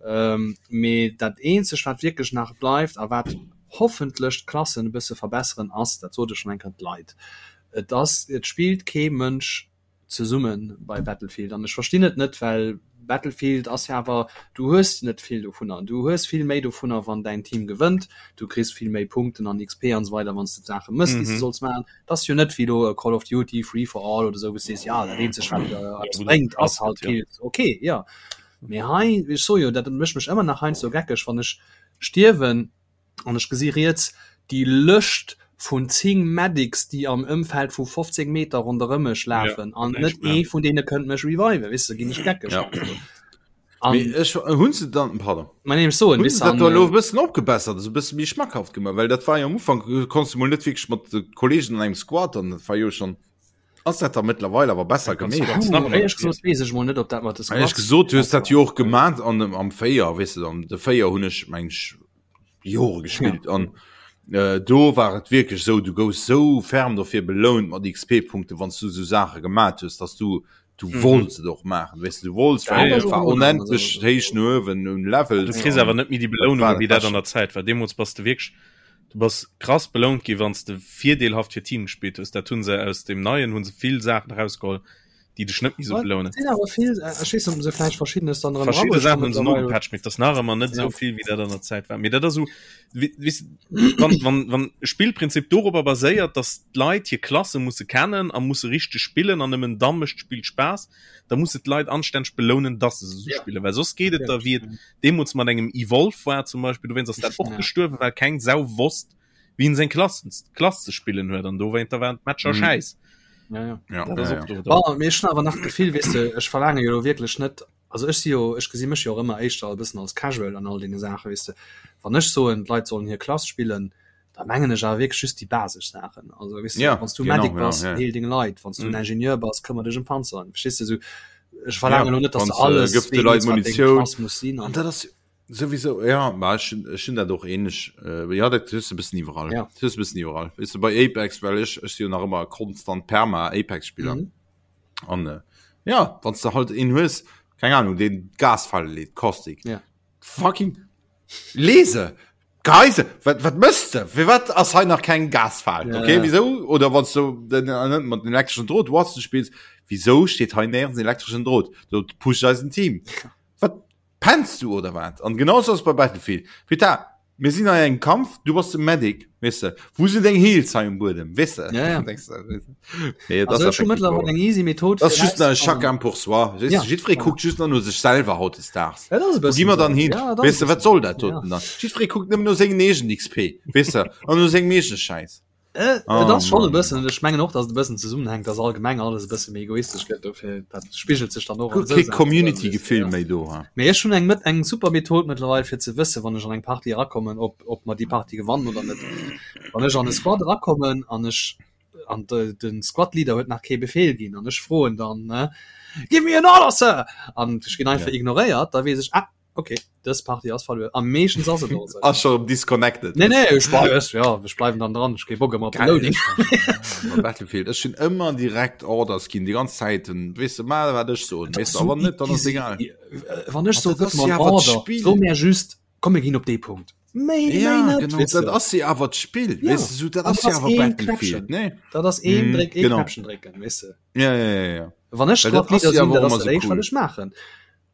Ähm, mee dat eenzegt wat wierklech nach bleift a wat hoffentlech d'Klassen e bësse verbesseren ass, dat sot ech schonn eng Kéier, d'Leit. Et ass, et spillt kee Mënsch zesumme bei Battlefield an ech verstinn et net, well Battlefield ass jo awer, du hues net vill dovunner, du hues vill méi dovunner wann däin Team gewënnt, du kriss vill méi Punkten an XP an esou weider wann s de d'Saache mëss déi s de solls maachen. Et ass jo net wéi elo Call of Duty Free for All oder esou wou s de sees, jo dat eenzegt wat eppes bréngt ass halt Kills, ok jo, mee hei, ech soe jo, dat mécht mech ëmmer nach heiansdo geckeg wann ech stierwen, An ech gesi riets déi Lëscht vun 10 Medics, déi am Ëmfeld vu 15 Meter ronderëm mech lafen, an net ee vun deene kënnt mech reviven, weess de, ginn ech geckeg. Ja. An, Mee ech hunn se dann, pardon. Ma nee, ech soen, Hunn weess se de, dat do an, elo e bëssen opgebessert, also e bësse méi schmackhaft gemaach? Well dat war jo am Ufank, konns du mol net wierklech mat de Kollegen an engem Squad an dat war jo schonn. Ass dat da mëttlerweil awer besser gemeet? Éierlech gesot weess ech mol net, ob dat mat de Squads. Éierlech gesot, du hues dat jo och gemat an dem am 4, weess de, am de 4 hunn ech meng ech Jore gespillt an äh, do war et wierklech sou, du gouss sou ferm dofir belount mat XP-Punkte wann s du sou Saache gemat hues, dass du du mhm. wollts et och maachen, weess de, du wollts, well et war onendlech héich no uewen un Levels. Du kriss awer net méi déi Belounung, wéi dat an der Zäit war. Deemools bass de wierklech Du bass krass belount gi wanns de virdeelhaft fir d'Team gespillt hues. Dat hunn se aus deem neien hunn se vill Saachen erausgeholl, déi dech net méi sou belounen. Sinn awer vill, ech weess net, ob se vläicht verschiddenes dann erëm Verschidde erabuecht Saachen hunn se mittlerweile. nogepatcht, mee et ass nach ëmmer net Ja. esou vill wéi dat an der Zäit war. Mee dat ass esou, we- weess de, wann, wann, wann e Spillprinzip dorobber baséiert, datt d'Leit hir Klasse musse kennen a musse richteg spillen an nëmmen da mécht d'Spill Spaass, da muss de d'Leit anstänneg belounen, datt se se esou Ja. spillen, well soss geet et da wéi et deemools mat engem Evolve war zum Beispill, dowéinst ass dat och Ja. gestuerwen, well keng Sau wosst, wéi en seng Klassen, Klass ze spillen huet an dowéinter waren d'Matcher Mhm. schäiss. Ja, ja. Ja, Dat ass ja, och ja. do. Bon, mee ech hunn awer nach d'Gefill, weess de, ech verlaange jo elo wierklech net, also ech si jo, ech gesi mech jo och ëmmer éischter e bëssen als Casual an all deene Saachen, weess de. Wann ech soen, d'Leit sollen hir Klass spillen, da mengen ech awer wierklech just déi basesch Saachen. Also weess de, Ja, wann s du genau, Medic ja, bass, ja. heel deng Leit, wann s du en Mhm. Ingenieur bass, këmmer dech ëm Panzeren, verstees de, sou ech verlaange Ja, elo net, dass wann de s de alles gëff de Leit weess, wat deng Munitioun. Klass muss sinn An an dat ass souwisou, ja, ma ech hunn, ech hunn dat och ähnlech, äh, ja, dat hues de e bëssen iwwerall. Ja. Dat hues de e bëssen iwwerall. Weess de, bei Apex, well ech, ech si jo nach ëmmer konstant Perma-Apex-Spiller. Mhm. An äh, ja, wann du halt een hues, keng Ahnung, den Gasfalle leet, Caustic. Ja. Fucking lese! Geise, wat, wat mëss de? Fir wat ass hei nach keng Gasfal? Ja, Okay, ja. wieso? Oder wann du den, äh, mat den elektrischen Drot Watson spielst, wieso steht hei nirgends elektrischen Drot? Do pusht eisen Team. Wat pennst du oder wat? An genauso ass bei Battlefield. Peter, mir sinn hei engem Kampf, du bass de Medic, weess de. Wou sinn deng Heals hei um Buedem, weess de? Ja, ja. Denkst du, weess de? Nee, Also, ech hu mëttlerweil eng easy Method Das ist just nach rauszukommen. chacun pour soi. Weess Ja. du, Jiddweree Ja. kuckt just nach no sech selwer hautdesdaags. Ja, dat ass e Wo bëssen gi mer esou. dann hin? Ja, dat ass Weess e du, wat bëssen soll dat esou. doten dann? Jiddweree kuckt nëmmen no sengen eegenen XP, weess de, an no sengem eegene Schäiss. Äh, Oh, et ass schon e Mann. bëssen, ech mengen och, dass et e bëssen zesummenhänkt, dass allgemeng alles e bësse méi egoistesch gëtt, dofir dat spigelt sech dann och an Gutt, esou kee Saachen erëm, weess du, Community-Gefill ja. méi do, ha? Mee ech hunn eng mët eng super Method mëttlerweil fir ze wëssen, wann ech an eng Partie erakommen, ob ob mer déi Partie gewannen oder net. Wann ech an e Squad erakommen an ech an de den Squad Leader huet nach kee Befehl ginn an ech froen dann ne, Give me an order, Sir! An ech ginn einfach Ja. ignoréiert, da weess ech, ah, Okay, dës Party ass verluer. Am meeschtens ass et och esou. Ass scho disconnected. Nee, nee, ech bleif, ech, ja, ech bleiwen dann dran. Ech kee Bock ëmmer op de Loading. Battlefield, ech hunn ëmmer direkt Orders ginn, déi ganz Zäit. Weess de, maach wat ech soen. Weess de, a wann net, dann ass egal. Wann ech dat soe, gëtt ass mer jo en awer Order, d'Spill. so mär just, komm mir ginn op dee Punkt. Méi, méi Ja, net, genau, weess dat de. ass jo awer d'Spill. Ja, Weess de, sou, dat an ass dat jo ass awer een Battlefield, Knäppchen. nee? Dat ass een Mhm, Dréck, ee genau. Knäppchen drécken, weess de. Ja, ja, ja, ja. Wann ech Well dat Squad Leader ass jo sinn, awer dat och ass ëmmer dat sou éischt, wat cool. ech maachen.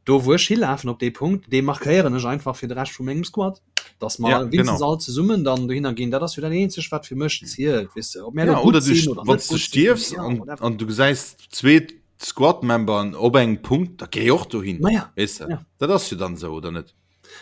Do wou ech hilafen op dee Punkt, dee markéieren ech einfach fir de Rescht vu mengem Squad, dass mer Ja, winstens genau. all zesummen dann dohinner ginn. Dat ass jo dat eenzegt, wat fir mech zielt, weess de. Ob mär Ja, elo oder gutt du, sinn oder wann net du gutt sinn, stierfs ja, an, whatever. an du gesäis zwee Squad-Memberen op engem Punkt, da géi och dohin. Ma ja, Weess de? ja. Dat ass jo dann esou, oder net?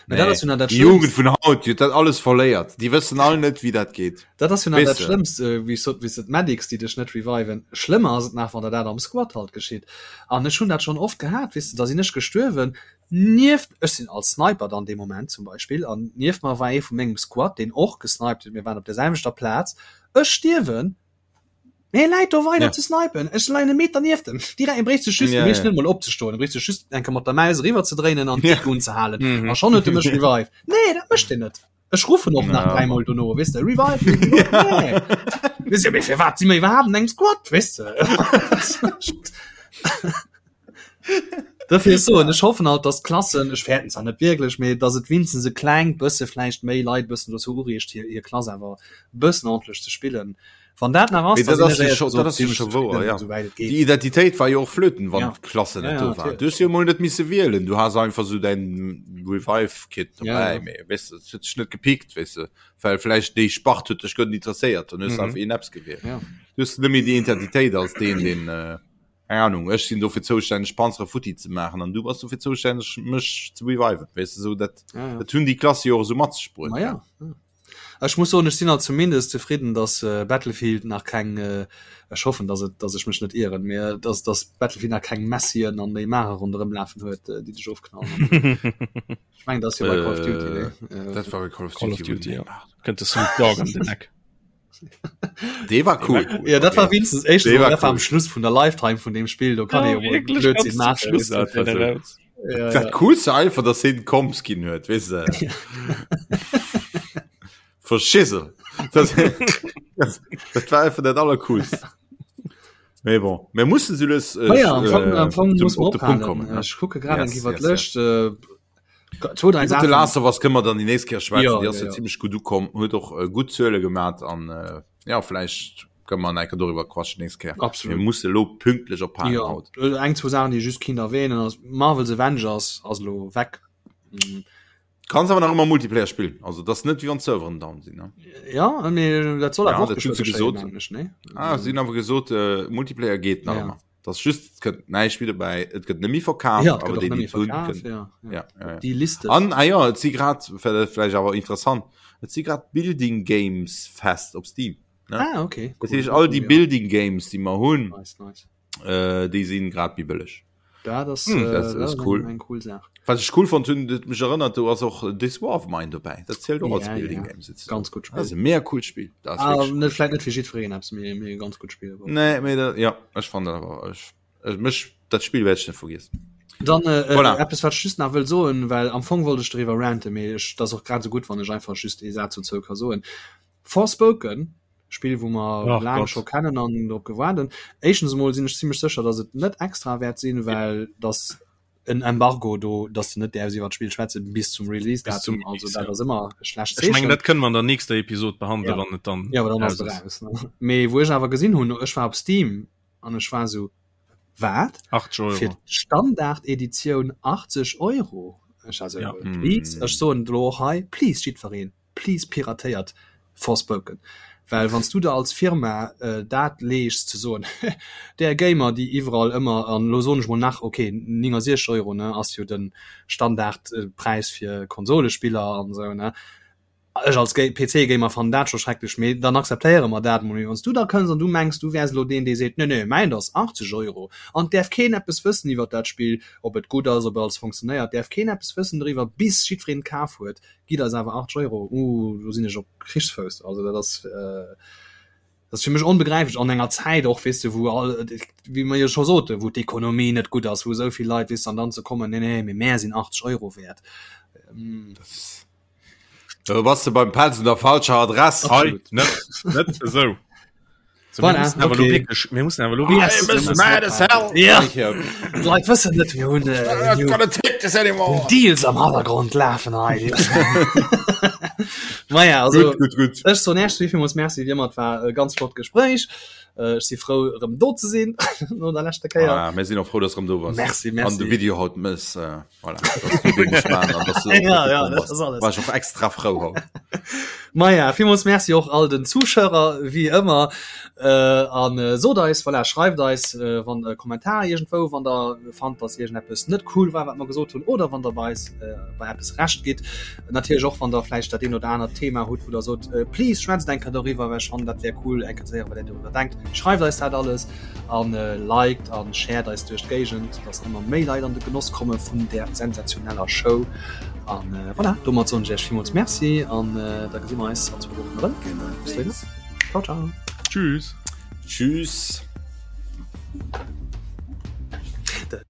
Mä dat ass jo nach dat Déi Jugend Schlëmmst. vun haut, déi huet dat alles verléiert. Déi wëssen all net, wéi dat geet. Dat ass jo nach Weess dat de? Schlëmmst, äh, wéi ech sot, wéi s de d'Medics, déi dech net reviven. Schlëmmer ass et nach, wann der dat am Squad halt geschitt. An ech hunn dat schonn oft gehat, weess de, da sinn ech gestuerwen, nieft, ech sinn als Sniper dann dee Moment zum Beispill, an nieft mer war ee vu mengem Squad, deen och gesniped huet, mir waren op der selwechter Plaz, ech stierwen, mee e läit do weider Ja. ze snipen, ech leien e Meter nieft em, direkt, e bréicht sech just, e Ja, bréicht ja. net emol opzestoen, e bréicht sech just eng Kéier mat der Maus eriwwer ze dréinen an Ja. d'Deckung unzehalen, Mhm. a schonn huet e mech revived. Nee, dat mécht en net. Ech ruffen och nach Ja. dräimol dono, weess de, revive me, nee. Weess de, mee firwat si mir iwwerhaapt an engem Squad, weess de? Dofir soen ech hoffen halt, dass d'Klassen, ech fäerten zwar net wierklech, mee dass et winstens e klengt bësse vläicht méi Leit bëssen dozou ureegt, hir, hir Klass awer e bëssen ordentlech ze spillen. Wann dat nach ass, Mee da dat sinn ass ech jo éierlech scho, dat gesot ass jo zimmlech scho wouer, zefridden, ja. esouwäit et Déi geet. Identitéit war jo och flöten, wann Ja. d'Klassen Ja, net ja, do waren. natierlech. Du hues jo emol net misse wielen, du has einfach sou däin Revive-Kit Ja, dobäi, ja. mee weess de, et huet dech net gepickt, weess de, well vläicht déi Spart huet dech guer net interesséiert, dann hues de Mhm. einfach een eppes gewielt. Ja. Du hues net méi déi Identitéit als deen, deen, äh, keng Ahnung, ech sinn dofir zoustänneg Panzere futti ze maachen an du bass dofir zoustänneg mech ze reviven, weess de, sou dat, Ja, ja. dat hunn déi Klasse jo och esou mat sech bruet. Ma ja, ja. Ech muss soen, ech sinn alt zumindest zefridden, dass Battlefield nach keng, ech hoffen, dass et, dass ech mech net ieren, mee dass, dass Battlefield nach keng Messien an Neymare ronderëm lafen huet, déi dech ofknallen. Ech mengen, dat ass jo bei Call of Duty, nee? Dat war bei Call of Call of Duty, Duty, ja. Kënnt de Snoop Dogg an den Eck. Dee war cool. Ja, dat war wenigstens éischtens Dee war dat war am cool. Schluss vun der Lifetime vun deem Spill, do kann ee jo mol Blödsinn maachen. Schluss Dat war so. raus. Ja, Dat ja. coolste einfach, dass hien Comps ginn huet, weess de. Verschissel. Das, das, dat war einfach dat allercoolst. Mee bon, mir mussen se lues äh, Ma ja, am Fong, am Fong zum, muss man op de Punkt ophalen. kommen. Ne? Ech kucke grad Yes, eng iwwer yes, d'Lëscht. Äh, zwou, dräi Iwwer The Saachen. Last of Us kënne mer dann déi nächst Kéier schwätzen. Ja, Déi ass ja, jo ja. zimmlech gutt ukomm, huet och äh, gutt Zuele gemat an äh, ja, vläicht kënne mer enker doriwwer quatschen nächst Kéier. Absolut. Mir musse lo pünktlech ophalen Ja, haut. äh, eng, zwou Saachen, déi ech just kinnt erwähnen, ass Marvel's Avengers ass elo weg. Mm. Kanns awer nach ëmmer Multiplayer spillen. Also dat ass net wéi wann d'Serveren down sinn. Ne? Ja, mee dat soll Ja, awer och dat hunn geschwë se geschéien, gesot. mengen ech, nee? Ah, si hunn awer gesot, äh, Multiplayer geet nach Ja. ëmmer. Dat ass just, et gëtt näischt méi dobäi, et gëtt net méi verkaaft, Ja, et awer gëtt och déi, net déi méi et hunn, verkaaft, kënnen. ja, ja. Ja, ja, ja. Déi Liste. An, ah ja, et si grad, vläicht awer interessant, et si grad Building Games Fest op Steam. Ne? Ah, okay. Dat Cool. heescht, all déi Ja. Building Games, déi mer hunn, Nice, nice. äh, déi sinn grad méi bëlleg. Dat ass, Hm, äh, dat dat ass ass cool. eng, eng cool Saach. Wat ech cool fonnt hunn, dat mech erinnert, do ass och This War of Mine dobäi. Dat zielt och als Ja, Building ja. Game sozusagen. Ganz gutt Dat ass Spill. e mega coolt Spill. Dat ass Ah, wierklech net, vläicht net fir jiddwereen eppes, mee, mee e ganz gutt Spill. cool. Nee, mee dat, ja, ech fand dat awer, ech, ech, mech, dat Spill wäert ech net vergiessen. Dann äh, äh, Voilà. eppes, wat ech just nach wëll soen, well am Fong wollt ech doriwwer ranten, mee ech, dat ass och grad esou gutt, wann ech einfach just ee Saz dozou ka soen. Forspoken. Spill wou mer laang scho kennen an drop gewaart hunn. Éischtens emol sinn ech zimmlech sécher, datt et net extra wäert sinn, well datt en Embargo do, datt de net däerfs iwwer d'Spill schwätze bis zum Release-Datum. Also dat ass ëmmer e schlecht Zeechen. Ech mengen dat kënne mer an der nächster Episod behandelen, ja. wann et dann ja, dann ass et eraus. Mee wou ech awer gesinn hunn, ech war op Steam an ech war esou, wat? 80 Euro. Fir d'Standard-Editioun 80 Euro? Ech war esou, ja. please, ech soen elo och hei, please jiddwereen, Please piratéiert Forspoken, well wanns du der als Firma dat leeschs ze soen, där Gamer déi iwwerall ëmmer, an elo soen ech mol nach, ok 69 Euro ne ass jo den Standardpräis fir Konsolespiller an esou ne, ech als PC Gamer fannen dat scho schrecklech, mee dann akzeptéiere mer dat mol, mee wanns du da kënns an du mengs du wäers elo deen dee seet, nee nee mäint ass 80 Euro an et däerf keen eppes wëssen iwwert dat Spill, ob et gutt ass, ob alles funktionéiert, däerf keen eppes wëssen doriwwer bis jiddwereen et kaf huet, Gitt eis awer 80 Euro, uh, do sinn ech op Krichsfouss. Also dat ass, äh, dat ass fir mech onbegräiflech an enger Zäit och, weess de, wou all, wéi mer jo scho soten, wou d'Ekonomie net gutt ass, wou esou vill Leit, weess de, an dann ze kommen, nee, nee, mee mär sinn 80 Euro wäert. Ähm, Da bass de beim Pelz un der falscher Adress. Hei, net, net esou. So, Voilà, mir mussen awer okay. lo wirklich, mir mussen awer lo Yes. wirklich- I'm mad as hell. Ja. D'Leit wëssen net, mir hunn äh, I'm not gonna take this anymore. Deals am Hannergrond lafen hei. Maja, also Gut, gut, gut. Ech soen Iech villmools Merci, wéi ëmmer, et war e ganz flott Gespréich. Äh, Ech si frou erëm do ze sinn no der leschter Kéier. Ah, mir sinn och frou, dass du erëm do bass. Merci, merci. An de Video haut mëss. Äh, voilà, dass du dee muss maachen an dass du Ja, ja, gekommen dat bass. ass alles. War ech och extra frou haut. Maja, villmools Merci och all den Zuschauer, wéi ëmmer. Äh, an äh, sot eis, voilà, schreift eis äh, wann e Kommentar iergendwou, wann der fannt, dass iergendeppes net cool war, wat mer gesot hunn, oder wann der bei eis äh, bei eppes Recht gitt. Natierlech och, wann der vläicht dat een oder anert Thema hutt, wou der sot, äh, please schwätzt eng Kéier doriwwer, well ech fannen, dat wär cool, eng Kéier ze héieren, wat där doriwwer denkt. Schreift eis dat alles an äh, liked an shared eis duerch d'Géigend, dass ëmmer méi Leit an de Genoss komme vun där sensationeller Show. An äh, voilà, domat soen ech Iech villmools Merci an äh, da gesi mer eis an zwou Wochen erëm. Bis dohinner. Ciao, ciao. Tschüss. Tschüss.